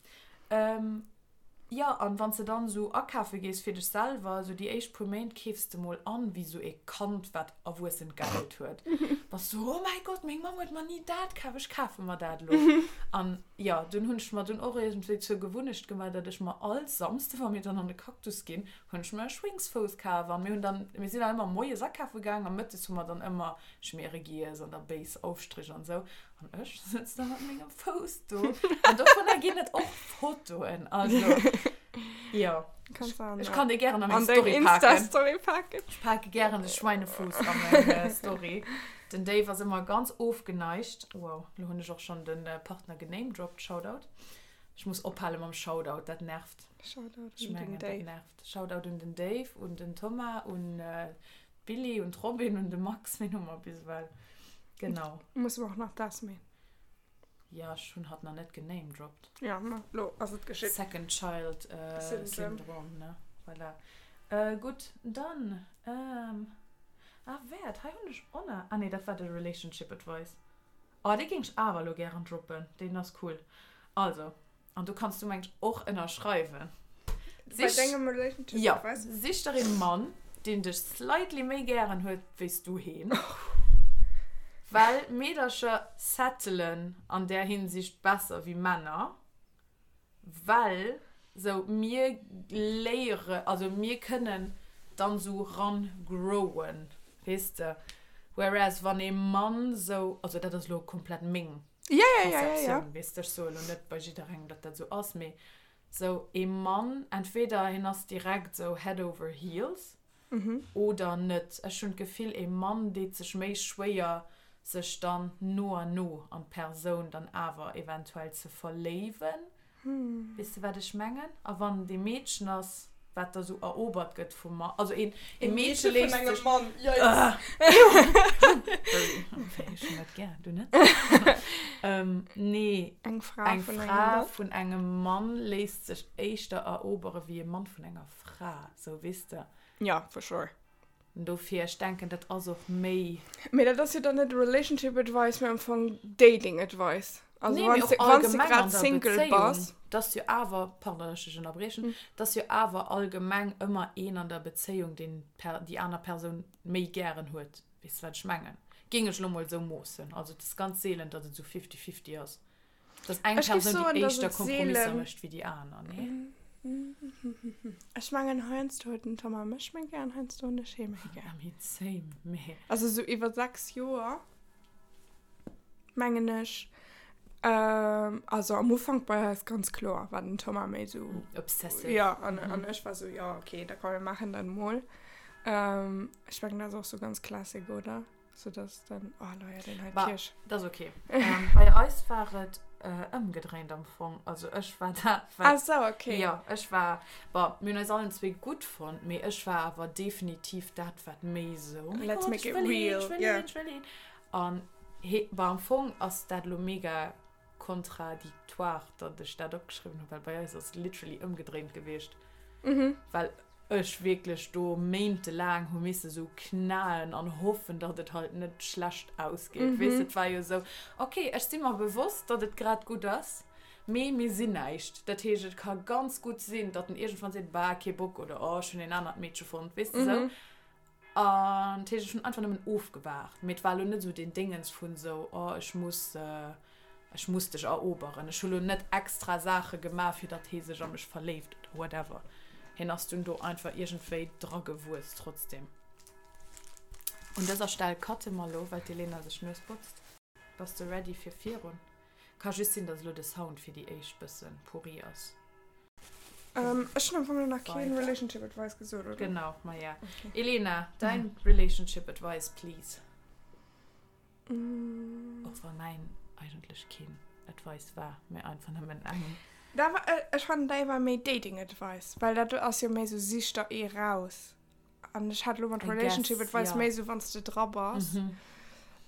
Jo, an wann s de dann esou akafe gees fir dech selwer, esou déi éischt puer Méint keefs de mol an wéi esou ee Kand, wat erwuessent Geld huet. Bass du, oh mäi Gott, meng Mamm huet mer ni dat kaf, ech kafe mer dat elo. An jo, dunn hunn ech mer dunn och iergendwéi zur Gewunnecht gemaach, datt ech mer all Samsde, wa mir dann an de Cactus ginn, hunn ech mer e Schwéngsfouss kaf. An mir hunn dann, mir sinn dann ëmmer moies akafe gaang a mëttes hu mer dann ëmmer Schmiere giess an da béis Aufstrich an esou. An ech sëtz da mat mengem Fouss do. An dovunner ginn et och Fotoen. Also, jo. Kannst du an, Ech kann déi gären an meng an deng Story paken. Insta-Story paken. Ech pake gären de Schweinefuuss a meng äh, Story. Den Dave ass ëmmer ganz ofgeneigt. Wow, lo hunn ech och schonn den äh, Partner genamedroppt. Shoutout. Ech muss ophale mam Shoutout, dat nervt. Shoutout Ech un den mengen, dat Dave. nervt. Shoutout un den Dave, un den Thomas, un äh, D'Billie, un d'Robin, un de Max, ween hu mer bis ewell? Genau. Musse mer och nach d'Esmée. Jo, ech hunn hatt nach net genamedropped. Jo, ma lo ass et geschitt. Second Child Syndrome. Syndrom, ne? Voilà. Gutt, dann, ah, wäert, hei hunn ech och nach, ah nee, dat war de Relationship Advice. Oh, dee géing ech awer elo gären droppen, deen ass cool. Also, An do kanns du mengt och ënnerschreiwen. Bei dengem Relationship Ja, Advice? sich der ee Mann, deen dech slightly méi gären huet wéi s du heen. Well Meedercher settelen an där Hinsicht besser wéi Männer, well sou mir léiere, also mir kënnen dann sou ran growen, weess de. Whereas wann ee Mann sou, also dat ass elo komplett meng Ja, ja, ja, ja, ja. Perceptioun, weess de, ech soe lo net bei jidderengem, datt dat esou ass, mee sou ee Mann, entweder hien ass direkt sou head over heels oder net. Ech hunn d'Gefill, ee Mann deet sech méi schwéier, sech dann no an no an d'Persoun dann awer eventuell ze verléiwen. Weess de, wat ech mengen? A wann et ee Meedchen ass, wat da sou erobert gëtt vum Mann, also een, ee Meedche vun léisst engem sech. Mann, yikes. Ech hunn dat gär, du net? Nee, Eng Fra eng vun engem Fra Mann. vun engem Mann léisst sech éischter erobere wéi e Mann vun enger Fra, sou, weess de? Ja, for sure. Dofir, ech denken, dat ass och méi. Mee dat ass jo dann net Relationship Advice, mee am Fong Dating Advice. Also Nee, mee wann och s de, wann s de allgemeng an grad der Single Bezéiung. bass. 't ass jo awer, pardon, datt ech dech ënnerbriechen, 't ass jo awer allgemeng ëmmer een an der Bezéiung, deen d'Per, déi aner Persoun méi gären huet. Weess de, wat ech mengen? Géing ech elo mol esou moossen. Also et ass ganz seelen, datt et esou fifty-fifty ass. Dass eng Ech géif Persoun déi soen, dass éischter et Kompromisser seelen. mécht wéi déi aner, nee? Ech mengen, heiansdo huet den Thomas mech méi gär an heiansdo hunn ech hie méi gär. I mean, same, mee. Also sou iwwer 6 Joer, mengen ech. Also am Ufank bei eis ganz kloer war den Thomas méi sou. Obsessive. Jo, an, an ech war sou, jo, okay, da komm mir maachen dat mol. Ech mengen, dat ass och sou ganz classic, oder? So dass dann, oh Leia, den hei Bah, Kirsch. dat ass okay. Ähm, bei eis war et äh, ëmgedréint am Fong. Also ech war dat, wat. Ah sou, okay. Jo, ech war, bon, mir hunn eis allen zwee gutt fonnt, mee ech war awer definitiv dat, wat méi sou, oh mein Let's Gott, make ech it wëll heen, real, ech wëll yeah. heen, ech wëll heen. An he, bon, am Fong ass dat elo mega contradictoire, datt ech dat opgeschriwwen hunn, well bei eis ass et literally ëmgedréint gewiescht. Mhm. Well ech wierklech do méintelaang hu misse sou knaen an hoffen, datt et halt net schlecht ausgeet. Mm -hmm. Weess, et war jo sou, okay, ech si mer bewosst, datt et grad gutt ass, mee mir sinn näischt. Dat heescht, et ka ganz gutt sinn, datt en iergendwann seet, bah, kee Bock oder oh, ech hunn een anert Meedche fonnt, weess de sou. Mm -hmm. An dat heescht, ech hunn einfach nëmmen ofgewaart. Mee et war elo net esou deen Déngens vun esou, oh, ech muss, ech muss dech eroberen. Ech hu lo net extra Saache gemaach, fir datt hee sech a mech verléift oder whatever. Hien ass dunn do einfach iergendwéi dragewuess trotzdem. Un dëser Stell cutte mer elo, well d'Elena sech d'Nues botzt. Bass de ready fir virun? Ka just sinn, datt elo de Sound fir déi éischt bësse pourri ass. Ähm, ech hunn am Fong nach keen Relationship Advice gesot, oder? Genau, maja. Okay. Elena, dein Relationship Advice, please. Mm. Och wann mäin eigentlech keen Advice war, mee einfach nëmmen eng. Da war, ech fannen däi war méi Dating Advice, well dat ass jo méi sou sich der ee raus. An ech hat elo mat Relationship Advice méi sou wann s de dra bass.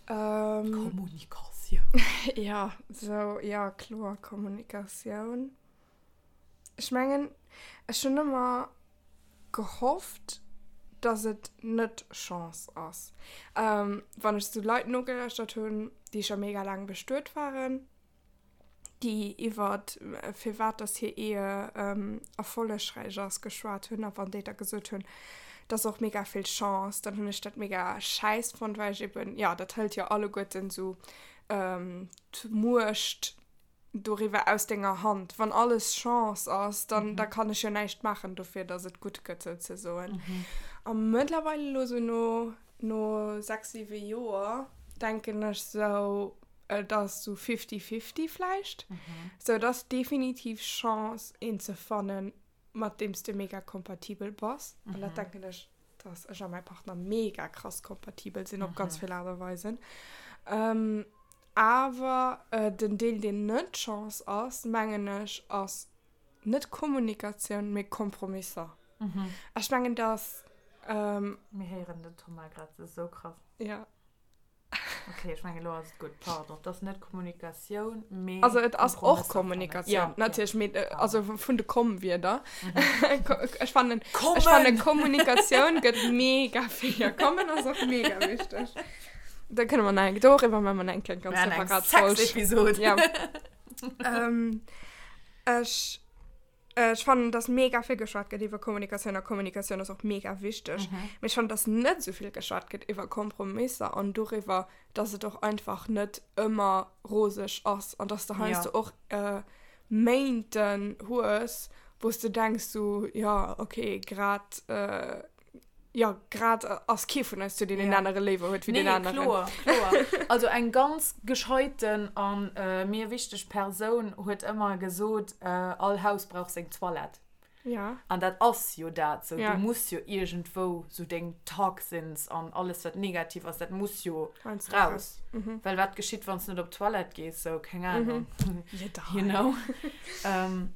Kommunikatioun. Jo, sou, jo kloer Kommunikatioun. Ech mengen, ech hunn ëmmer gehofft, dass et net Chance ass. Wann ech sou Leit nogelauschtert hunn, déi scho mega laang bestuet waren, déi iwwer firwat dass hir Ehe erfollegräich ass geschwat hunn a wann déi da gesot hunn, dass och mega vill Chance, dann hunn ech dat mega schäiss fonnt, well ech eben, jo, dat hëlt jo alleguerten esou d'Muecht doriwwer aus denger Hand. Wann alles Chance ass, dann da kann ech jo näischt maachen dofir, dass et gutt gëtt souzesoen. A mëttlerweile elo sou no no 6, 7 Joer denken ech sou, Et ass sou fifty-fifty vläicht. Sou et ass definitiv Chance een ze fannen, mat deem s de mega kompatibel bass. An dat denken ech, dass ech a mäi Partner mega krass kompatibel sinn op ganz vill Aart a Weisen. Awer den Deel deen net Chance ass, mengen ech, ass net Kommunikatioun, mee Kompromisser. Ech mengen, dass. Mir héieren den Thomas grad esou krass. Ja. Okay, ech mengen elo ass et gutt. Pardon, et ass net Kommunikatioun, mee Also et ass och Kommunikatioun, ja, natierlech, mee äh, also vun de Komm-Wierder. Ech fannen, ech fannen Kommunikatioun gëtt mega vill. Ja, kommen ass och mega wichteg. Da kënne mer nach eng, doriwwer maache mer nach eng kleng ganz separat Folg. Sex-Episod. Ja. ähm, ech Ech fannen, dass mega vill geschwat gëtt iwwer Kommunikatioun a Kommunikatioun ass och mega wichteg. Mhm. Mee ech fannen, dass net esou vill geschwat gëtt iwwer Kompromisser an doriwwer, dass et och einfach net ëmmer roseg ass an dass de heiansdo ja. och äh, Méinten hues, wou s de denks so, ja, okay, grad äh, Jo, grad ass kee vun eis zu deen een anere léiwer huet wéi deen aneren. Nee, kloer, kloer. Also eng ganz gescheiten an mir wichteg Persoun huet ëmmer gesot, all Haus brauch seng Toilette. Ja. An dat ass jo dat, sou du muss jo iergendwou sou deng Toxins an alles wat negativ ass, dat muss jo raus. Well wat geschitt wann s net op d'Toilette gees, sou keng Ahnung. You know?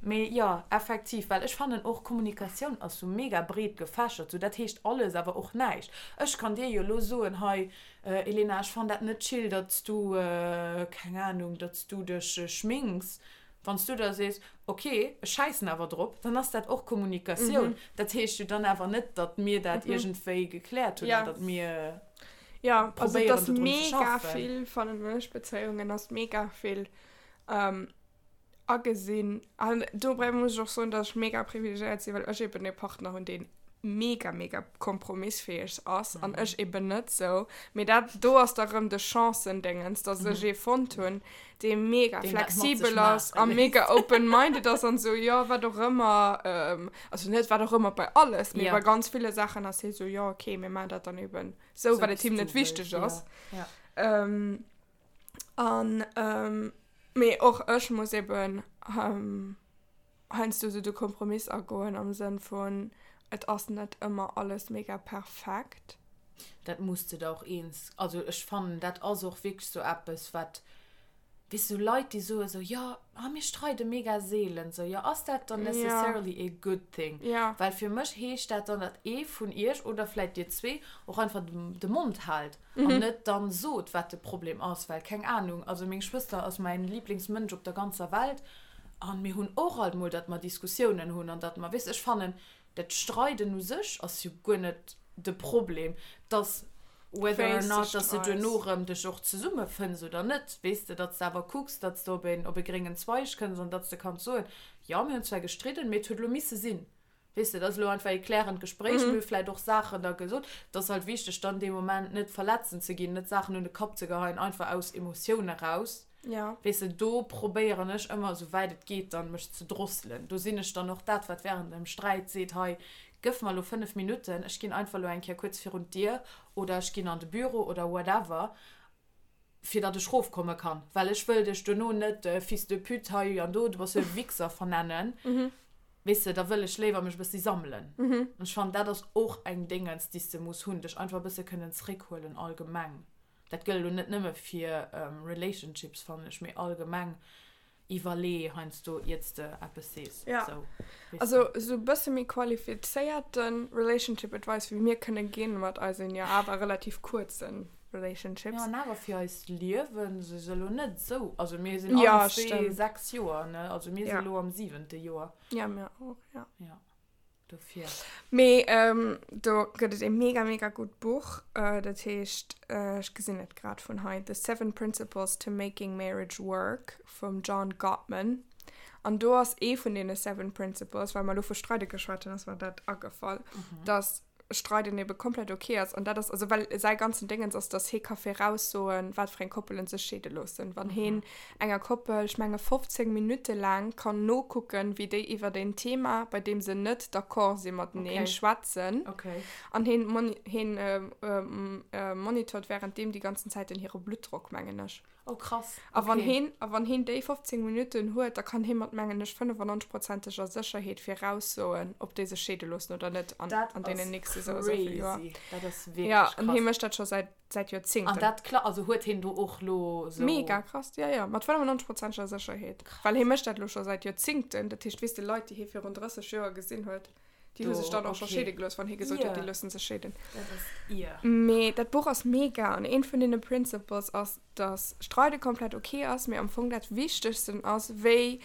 Mee jo, effektiv, well ech fannen och Kommunikatioun ass sou mega breet gefächert, sou dat heescht alles awer och näischt. Ech kann dir jo elo soen, hei Elena, ech fannen dat net chill, datt s du, keng Ahnung, datt s du dech schminks. Wann s du da sees, ok, ech schäissen awer drop, dann ass dat och Kommunikatioun. Dat heescht jo dann awer net, datt mir dat iergendwéi gekläert hunn an datt mir probéieren dodrun ze schaffen. Also et ass mega vill, fannen ech, Bezéiungen ass mega vill agesinn. An dobäi muss ech och soen, dass ech mega privilegéiert sinn, well ech eben e Partner hunn, deen mega, mega kompromissfäeg ass an ech eben net sou. Mee dat do ass da rëm de Chancendéngens, dass ech ee fonnt hunn, dee mega Deen dat mat sech flexibel ass maache a léisst. mega open-minded ass an sou, jo, wat och ëmmer, also net wat och ëmmer bei alles, mee Ja. bei ganz ville Saachen ass hie sou, jo, okay, mir maachen dat dann eben sou, Sou well et wéi him s net du wichteg wëlls, ass. ja. Ja. An, mee och ech muss eben heiansdo sou de Kompromiss agoen am Sënn vun, et ass net ëmmer alles mega perfekt. Dat muss de der och eens, also ech fannen dat ass och wierklech sou eppes wat, weess sou Leit déi soe sou, jo ah mir streide mega seelen, sou jo ass dat dann necessarily a good thing? Well fir mech heescht dat dann, datt ee vun iech oder vläit dir zwee och einfach de Mond haalt. An net dann sot, wat de Problem ass, well keng Ahnung, also meng Schwëster ass mäin Lieblingsmënsch op der ganzer Welt an mir hunn och alt mol, datt mer Diskussiounen hunn an datt mer, weess, ech fannen, dat Streiden u sech ass jo guer net de Problem, dass whether or not, datt s de duerno erëm dech och zesummefënns oder net, weess de, datt s de awer kucks, datt s de op een, op e gréngen Zweig kënns an datt s de kanns soen, jo, mir hunn zwar gestridden, mee et huet elo misse sinn. Weess de, dat ass elo einfach ee klärend Gespréich. Mir hu vläicht och Saachen da gesot. Et ass halt wichteg, dann dee Moment net verletzend ze ginn, net Saachen un de Kapp ze geheien, einfach aus Emotioun eraus. Ja. Weess de, do probéieren ech ëmmer, esou wäit et geet, dann mech ze drosselen. Do sinn ech dann och dat, wat während dem Sträit seet, hei, gëff mer elo 5 Minutten, ech ginn einfach elo eng Kéier kuerz virun d'Dier oder ech ginn an de Büro oder whatever. fir datt ech rofkomme kann, well ech wëll dech duerno net Fils de pute hei an do, du bass jo e Wichser vernennen, weess de, da wëll ech léiwer mech e bëssi sammelen. An ech fannen, dat ass och eng Déngens, déi s de muss hunn, dech einfach e bësse kënnen zréckhuelen allgemeng. Dat gëllt elo net nëmme fir Relationships, fannen ech, mee allgemeng. Iwwerlee heiansdo iert s de eppes sees. Ja. Sou, weess Also de. sou bësse méi qualifizéierte Relationship Advice wéi mir kënne ginn mat eisen jo awer relativ kuerze Relationships. Jo, an awer fir eist Liewen si se elo net sou, also mir sinn Ja, allen zwee stimmt. 6 Joer, ne, also mir si Ja. elo am siwente Joer. Ja, mir och, ja. Ja. Dofir. Mee do gëtt et ee mega mega gutt Buch, dat heescht, ech gesinn et grad vun hei, The Seven Principles to Making Marriage Work vum John Gottman. An do ass ee vun deene Seven Principles, well mer elo vu Streide geschwat hunn, ass mer dat agefall, dass Streiden ebe komplett ok ass. An dat ass, also well säi ganzen Déngens ass, dass hee ka viraussoen, wat fir eng Koppelen sech scheede loossen. Wann heen enger Koppel, ech menge 15 Minutte laang kann nokucken, wéi déi iwwert een Thema, bei deem se net d'accord si mateneen, Okay. schwätzen. Okay. An heen moni heen monitort währenddeem déi ganzen Zäit den hire Bluttdrock, mengen ech. Oh krass. A wann Okay. heen a wann heen déi 15 Minutten huet, da kann hee mat, mengen ech, 95-prozenteger Sécherheet viraussoen, ob déi sech scheede loossen oder net an Dat an deenen ass nächste sou a sou vill Joer. crazy. Dat ass Ja, wierklech an hee krass. mécht dat scho säit säit An Joerzéngten. dat kla also huet heen do och lo sou. Mega krass, ja ja, mat 95-prozenteger Sécherheet. Well hee mécht dat lo scho säit Joerzéngten. Dat heescht, weess de, Leit, déi hee virun 30 Joer gesinn huet, déi hu Do, sech dann och scho okay. scheede gelooss, wann hee gesot huet, déi Ier. loossen sech scheeden. Dat ass ier. Mee dat Buch ass mega an eent vun deene Principles ass, dass Streide komplett ok ass, mee am Fong dat Wichtegsten ass, wéi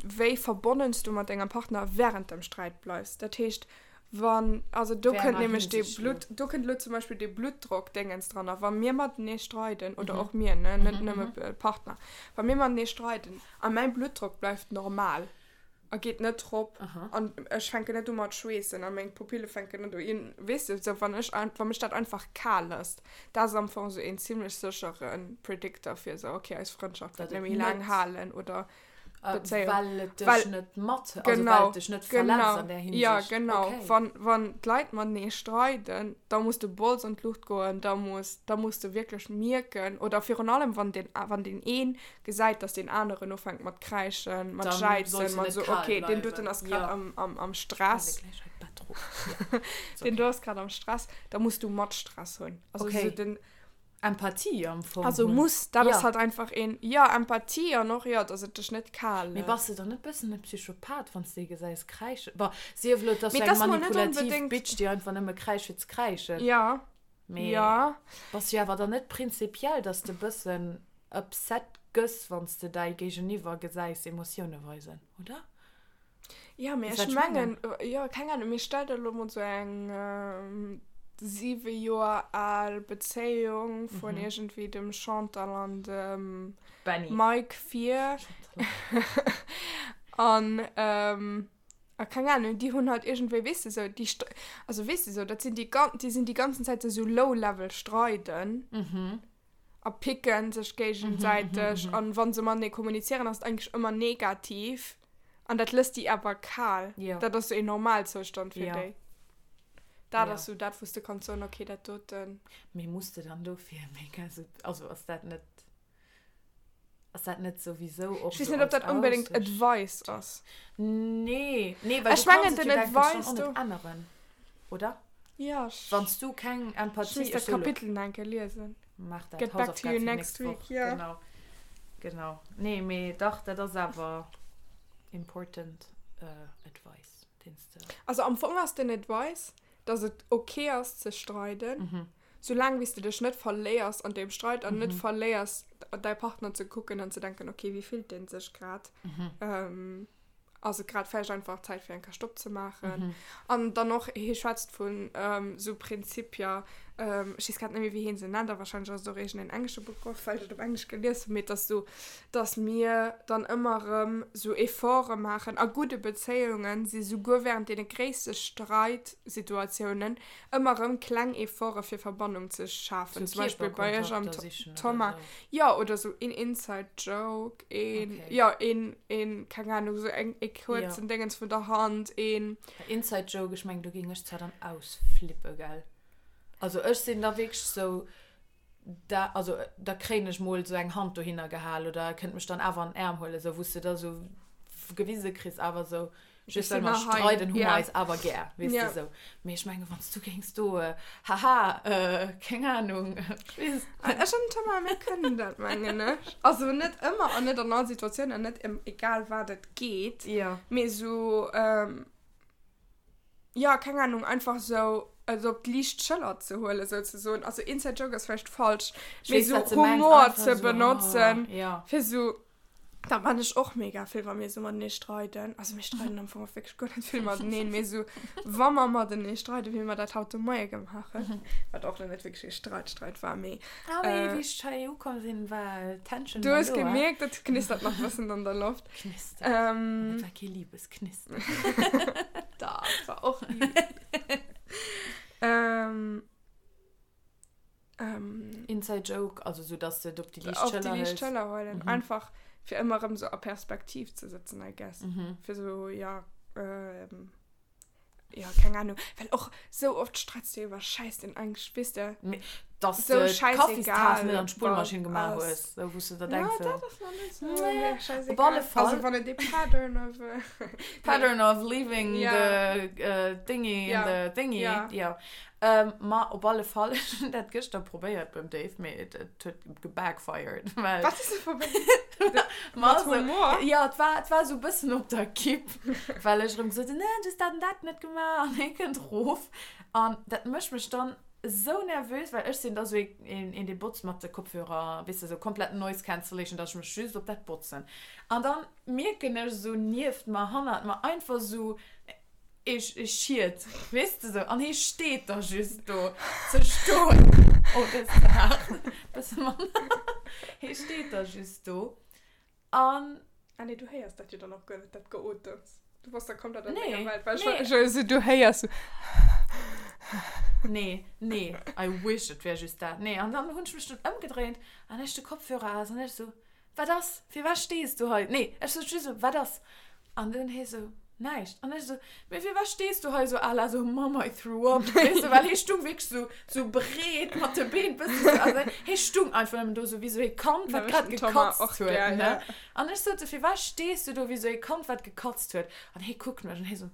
wéi verbonnen s du mat dengem Partner wärend dem Sträit bleifs. Dat heescht, wann, also do Wéi kënnt enger nämlech dee Hinsicht elo? Blutt, do kënnt elo zum Beispill dee Bluttdrockdéngens dran. A wa mir matenee streiden, oder och mir, ne, net nëmme Partner, wa mir matenee streiden a mäi Bluttdrock bleift normal, a geet net drop an ech fänken net u mat schweessen a meng Pupille fänken net u in, weess de, sou wann ech wa mech dat einfach kal lësst, dat ass am Fong sou een zimlech séchere Predictor fir sou okay eis Frëndschaft wäert Datt net et méi laang net halen oder Bezéiung. Well et dech Well net mat, also well genau, et dech net verletzt genau, an där ja Hinsicht. genau, Okay. wann wann d'Leit matenee streiden, da muss de Bols an d'Luucht goen, da muss da muss de wierklech mierken oder virun allem wann den wann deen een gesäit, dass deen aneren ufänkt mat kräischen, mat Dann jäizen, sollst du mat net so, kal okay, deen doten bleiwen. ass grad Ja. am, am, am Stress. Ech gleich hei d'Bett rop. Ja. Ist Den okay. do ass grad am Stress, da muss du mat Stress hunn. Also Okay. so den, Empathie am Fong also hunn. muss, dat ass Ja. halt einfach een, ja, Empathie an och, ja, dass et dech net kal Mee bass lësst. de dann net bëssen e Psychopath, wann s de ee gesäis kräischen? Bon, sief elo, et ass Mee sou eng dat ass mol net manipulativ onbedéngt. Bitch, déi einfach nëmme kräischt fir ze kräischen. Ja. Mee Ja. bass jo awer dann net prinzipiell, dass de bëssen upset gëss, wann s de däi Géigeniwwer gesäis Emotioune weisen, oder? Ja, mee Weess ech wat ech mengen? mengen, jo, keng Ahnung, mee stell der elo mol sou eng 7 Joer al Bezéiung vun iergendwéi dem Chantal an dem Benny. Mike vir. An A keng Ahnung, déi hunn halt iergendwéi, weess de, sou, déi, also weess de, sou, dat sinn déi, déi sinn déi ganzen Zäit sou low-level streiden a picken sech géigesäiteg an wa se matenee kommunizieren, ass et eigentlech ëmmer negativ an dat lësst déi awer kal. Dat ass sou een Normalzoustand fir déi. Dat ass sou dat, wou s de kanns soen, okay, dat doten. Mee muss de dann dofir mega sou, also ass dat net. Ass dat net souwisou och Ech weess sou net, ob als dat onbedéngt Aussicht? Advice ass. Nee, nee, well Ech du kanns mengen et den jo dann Advice och do. net änneren, oder? Ja, ech. Wann s du keng Ech Empathie, misst ech dat soe lo. Kapitel nach eng Kéier liesen. Maach dat, Get back to Hausaufgab you fir next d'nächst Woch. week, ja. Genau, genau. Nee, mee dach, dat ass awer important advice, deen s de. Also am Fong ass den Advice, dass et ok ass ze streiden, soulaang wéi s de dech net verléiers an deem Streit an net verléiers däi Partner ze kucken an ze denken, ok, wéi fillt dee sech grad, ass et grad vläicht einfach Zäit fir eng Kéier Stopp ze maachen. An dann och, hie schwätzt vun esou Prinzipier, ech weess grad net méi wéi hie se nennt, a warscheinlech ass et och iergendeen englesche Begrëff, well ech et op Englesch gelies hunn, mee et ass esou, dass mir dann ëmmer erëm esou Efforte maachen a gudde Bezéiungen si souguer während deene gréisste Streitsituatiounen ëmmer erëm kleng Efforte fir Verbannung ze schafen. Sou Zum Beispill bei iech am Kierperkontakter sichen oder Thomas, sou. jo, oder sou een Inside Joke, een, Okay. jo, een, een, keng Ahnung, sou eng, e Ja. kuerzen Déngens vun der Hand, een. Inside Joke, ech mengen do géing ech zwar dann ausflippe, gell? Also ech sinn da wierklech sou, da, also da kréien ech mol sou eng Hand dohinner gehal oder e kënnt mech dann awer an den Aarm huelen, sou wou s de da sou gewise kriss awer sou. Just well mer streiden, hu mer eis awer gär, weess de sou. Mee ech mengen, wann s du géings do, haha, keng Anung, ech weess et net. Ech an den Thomas, mir kënnen dat, mengen ech. Also net ëmmer an net an all Situatioun an net ëm egal wat et geet. Mee sou, jo, keng Anung, einfach sou et op d'liicht Schëller ze huelen, souzesoen. Also Inside Joke ass vläicht falsch, mee sou Humor ze benotzen, fir sou. Dat man ech och mega vill, wa mir sou matenee streiden. Also mir streiden am Fong och wierklech guer net vill mateneen, mee sou wa mer matenee streiden, wéi mer dat haut de Moie gemaach hunn, wat och lo net wierklech ee Streit-Streit war, mee. Ah mee wéi ech hei ukomm sinn, war d'Tension Du hues gemierkt, et knistert nach e bëssen an der Loft. Knistert. An et war kee Liebesknistern. Dach, et war och Liebes. Ähm, Inside Joke, also so, dass du et op déi liicht Schëller hëls. Op déi liicht Schëller huelen. Mhm. Einfach, fir ëmmer erëm so a Perspektiv ze sëtzen, I guess. Mhm. Fir so, ja, ähm, ja, keng Ahnung. Well och sou oft streits du iwwer Schäiss, deen eigentlech, weess de. Mee, dass du d'Kaffistaass net an d'Spullmaschinn gemaach hues, sou, wou s du der denks, so. Ja, dat ass nach net sou mega schäissegal. Op alle Fall. Also, wann et ee Pattern of. Pattern of leaving the thingy in the thingy. Ja. Ma op alle Fall, ech hunn dat gëschter probéiert beim Dave, mee et huet gebackfired, well. Wat hues de probéiert? Mat Humor? Jo, et war, et war esou e bëssen op der Kipp, well ech erëm gesot hunn, nee, du hues dat an dat net gemaach an hie kënnt erof an dat mécht mech dann esou nervös, well ech sinn da esou een, een dee botzt mat de Kopfhörer, weess de, esou komplett Noise Cancellation, dass ech mech just op dat botzen an dann mierken ech esou nieft mer, hannert mer einfach esou Ee Schiet, weess de sou, an hee steet da just do ze stoen. Oh, dat ass ze haart. Bësse manner. Hee steet da just do an. Ah nee, du héiers dat jo dann och guer net, dat Geotems. Du bass da komplett an denger Welt. Well ech war esou, du héiers sou. Nee, nee, I wish et wär just dat. Nee, an dann hunn ech mech dunn ëmgedréint an ech de Kopfhörer aus an ech sou, Wat ass? Firwat stees du hei? Nee, ech sot just esou, Wat ass? An dunn hie sou, Näischt. An ech esou, Mee firwat stees du hei esou à la sou, Mom, I threw up, weess de, well hie stung wierklech sou, sou breet mat de Been bëssen sou, also hie stung einfach nëmmen do sou wéi sou ee Kand, wat grad gekatzt huet, ne? An ech sot sou, Firwat stees du do wéi sou ee Kand, wat gekatzt huet? An hie kuckt mech an hie sou,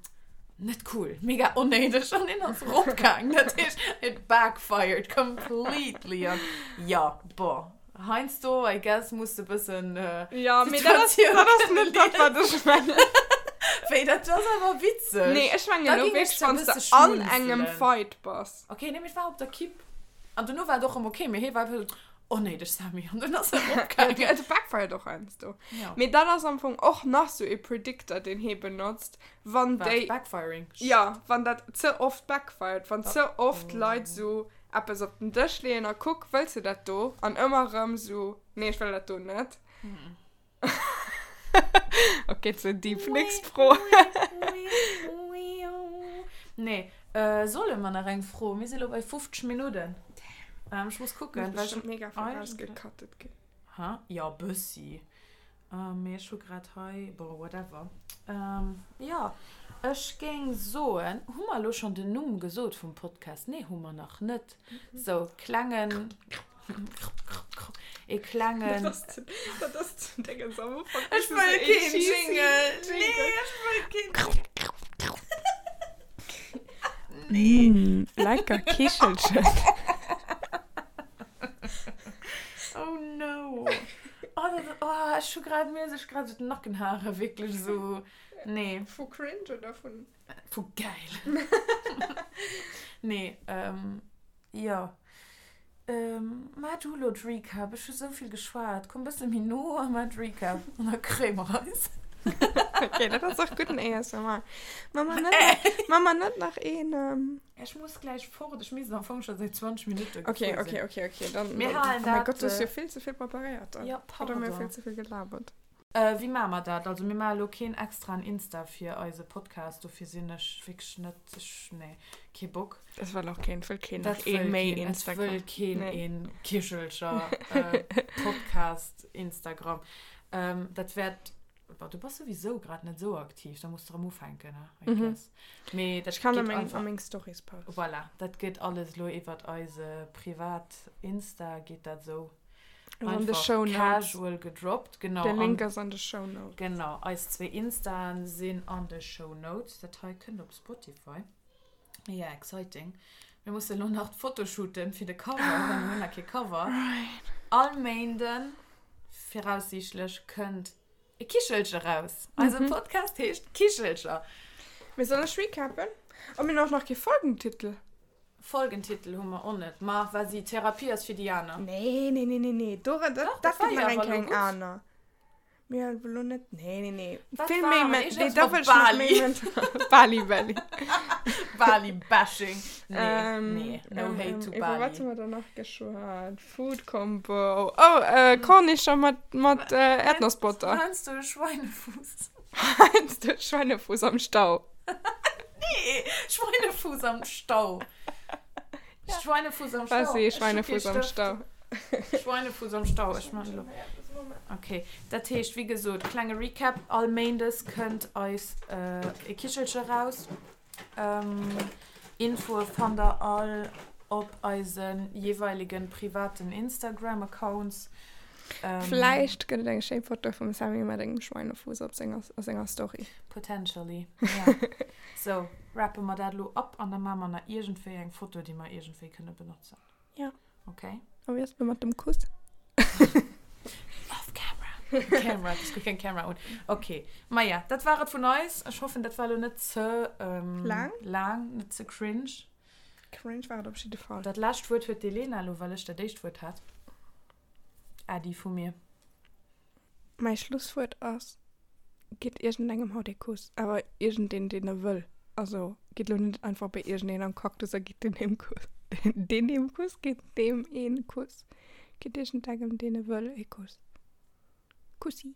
Net cool, mega onnéideg. An hien ass eropgaangen. Dat heescht, it backfired completely. An jo, bon. Heiansdo, I guess, muss de bëssen Ja, mee dat ass, dat ass net dat, wat ech mengen. Wéi, dat ass awer witzeg. Nee, ech mengen elo wierklech, wann s de an engem Fight bass. Ok, nee, mee et war op der Kipp. An dono war et och erëm ok, mee hie war einfach esou, Onnéideg, Sammy. An dunn ass en eropgaangen. Ja, et backfired och heiansdo. Ja. Mee dat ass am Fong och nach sou ee Predictor, deen hie benotzt, wann déi. Wat, Backfiring? Ja, wann dat ze oft backfired, wann ze oft Leit sou eppes op den Dësch leeën a kuck, wëlls de dat do? An ëmmer erëm sou, nee, ech wëll dat do net. Ok, ze deep. Nächst Fro. Nee, äh, solle mer nach eng Fro? Mir si lo bei 50 Minutten. Ähm, ech muss kucken, well ech. Mega vill rausgecuttet ginn. Hä? Jo, bëssi. Mee ech hu grad hei, bon, whatever. Jo, ech géing soen, hu mer elo schonn den Numm gesot vum Podcast? Nee, hu mer nach net. Sou, klengen, ee klengen. Dat ass, dat ass den Dingens am Ufank. Ech wëll keen Jingle. Nee, ech wëll keen. Nee. Lecker Kichelchen. Oh no. Oh, dat, oh, ech hu grad, mir sech grad sou d'Nackenhaare wierklech sou, nee. Vu cringe oder vun? Vu geil. Nee, ähm, jo. Ähm, maa du lo d'Recap, ech hu sou vill geschwat. Komm bësse méi no a maa d'Recap an da kréie mer eis. Ok, dat ass och gudden ASMR. Maa mer net, maa mer net nach een, ähm. Ech muss gläich fort, ech misst am Fong scho säit 20 Minutte Ok, gefuer ok, sinn. ok, ok, dann, Mir dann, halen oh mäi dat, Gott, du hues jo vill ze vill preparéiert dann. Jo, Oder mir pardon. vill ze vill gelabert. Wéi maache mer dat? Also mir maache lo keen extraen Insta fir eise Podcast, dofir sinn ech wierklech net, ech, nee, kee Bock. Dat wëll och keen, et wëll keen nach ee méi Instagram. Et wëll keen ee Kichelcher Podcast Instagram. Dat wäert, bon, du bass souwisou grad net esou aktiv, da muss de erëm ufänken, I guess. Mee dat Ech kann geet einfach. a meng Stories posten. Voilà, dat geet alles elo iwwert eise privat Insta geet dat esou. An de Einfach Shownotes. casual gedroppt, genau. De Link An ass an de Shownotes. genau, eis zwee Instaen sinn an de Shownotes. Dat hei kënnt op Spotify. Ja, exciting. Mir mussen elo nach d'Foto shooten fir de Cover, well mir hunn nach kee Cover. Right. All Méinden, viraussiichtlech, kënnt e Kichelche raus. Eise Podcast heescht Kichelcher. Mee soll ech recappen? Oh, mir hunn och nach kee Folgentitel. Folgentitel hu mer och net. Ma vas-y, Therapie ass fir déi aner. Nee, nee, nee, nee, nee. Do, dat, Dach, dat dat war gëtt jo nach eng awer elo kleng gutt. aner. Mir hu elo net, nee, nee, nee. Wat Vill war méi, et? me, Iergendwas nee, da mat wëll ech nach Bali. méi mental. Bali Belly. Bali Bashing. Nee, Ähm, nee, no ähm, hate ähm, to iwwer Bali. wat hu mer da nach geschwat? Food Combo. Oh, äh, Kornischer mat, mat äh, Erdnossbutter. Heiansdo e Schweinefuuss. Heiansdo Schweinefuuss am Stau. Nee, Schweinefuuss am Stau. Schweinefuuss am Stau. Was si Ech hu kee Schweinefuuss am Stëft. Stau? Schweinefuuss am Stau, ech man elo. Okay, dat heescht, wéi gesot, klenge Recap, all Méindes kënnt eis e Kichelche raus. Infoe fannt der all op eise jeeweilegen privaten Instagram-Accounts. Vläicht gëtt et eng schéi Foto vum Sammy mat engem Schweinefuuss op senger, a senger Story. Potentially, ja. Sou, rappe mer dat elo ab an da maache mer nach iergendwéi eng Foto, déi mer iergendwéi kënne benotzen. Ja. Okay. A wéi ass et elo mat dem Kuss? Off camera. Camera, ech hu keng Camera un. Okay. Maja, dat war et vun eis. Ech hoffen, dat war elo net ze ähm, Laang? laang, net ze cringe. Cringe war et op jidde Fall. Dat lescht Wuert huet d'Elena elo, well ech dat éischt Wuert hat. Äddi vu mir. Mäi Schlusswuert ass, Gitt iergendengem haut ee Kuss, awer iergendeen, deen e wëll. Also gitt elo net einfach bei iergendeen am Cactus a gitt deen ee Kuss. Deen ee Kuss? Gitt deem een Kuss. Gitt iergendengem, deen e wëll, ee Kuss. Kussi.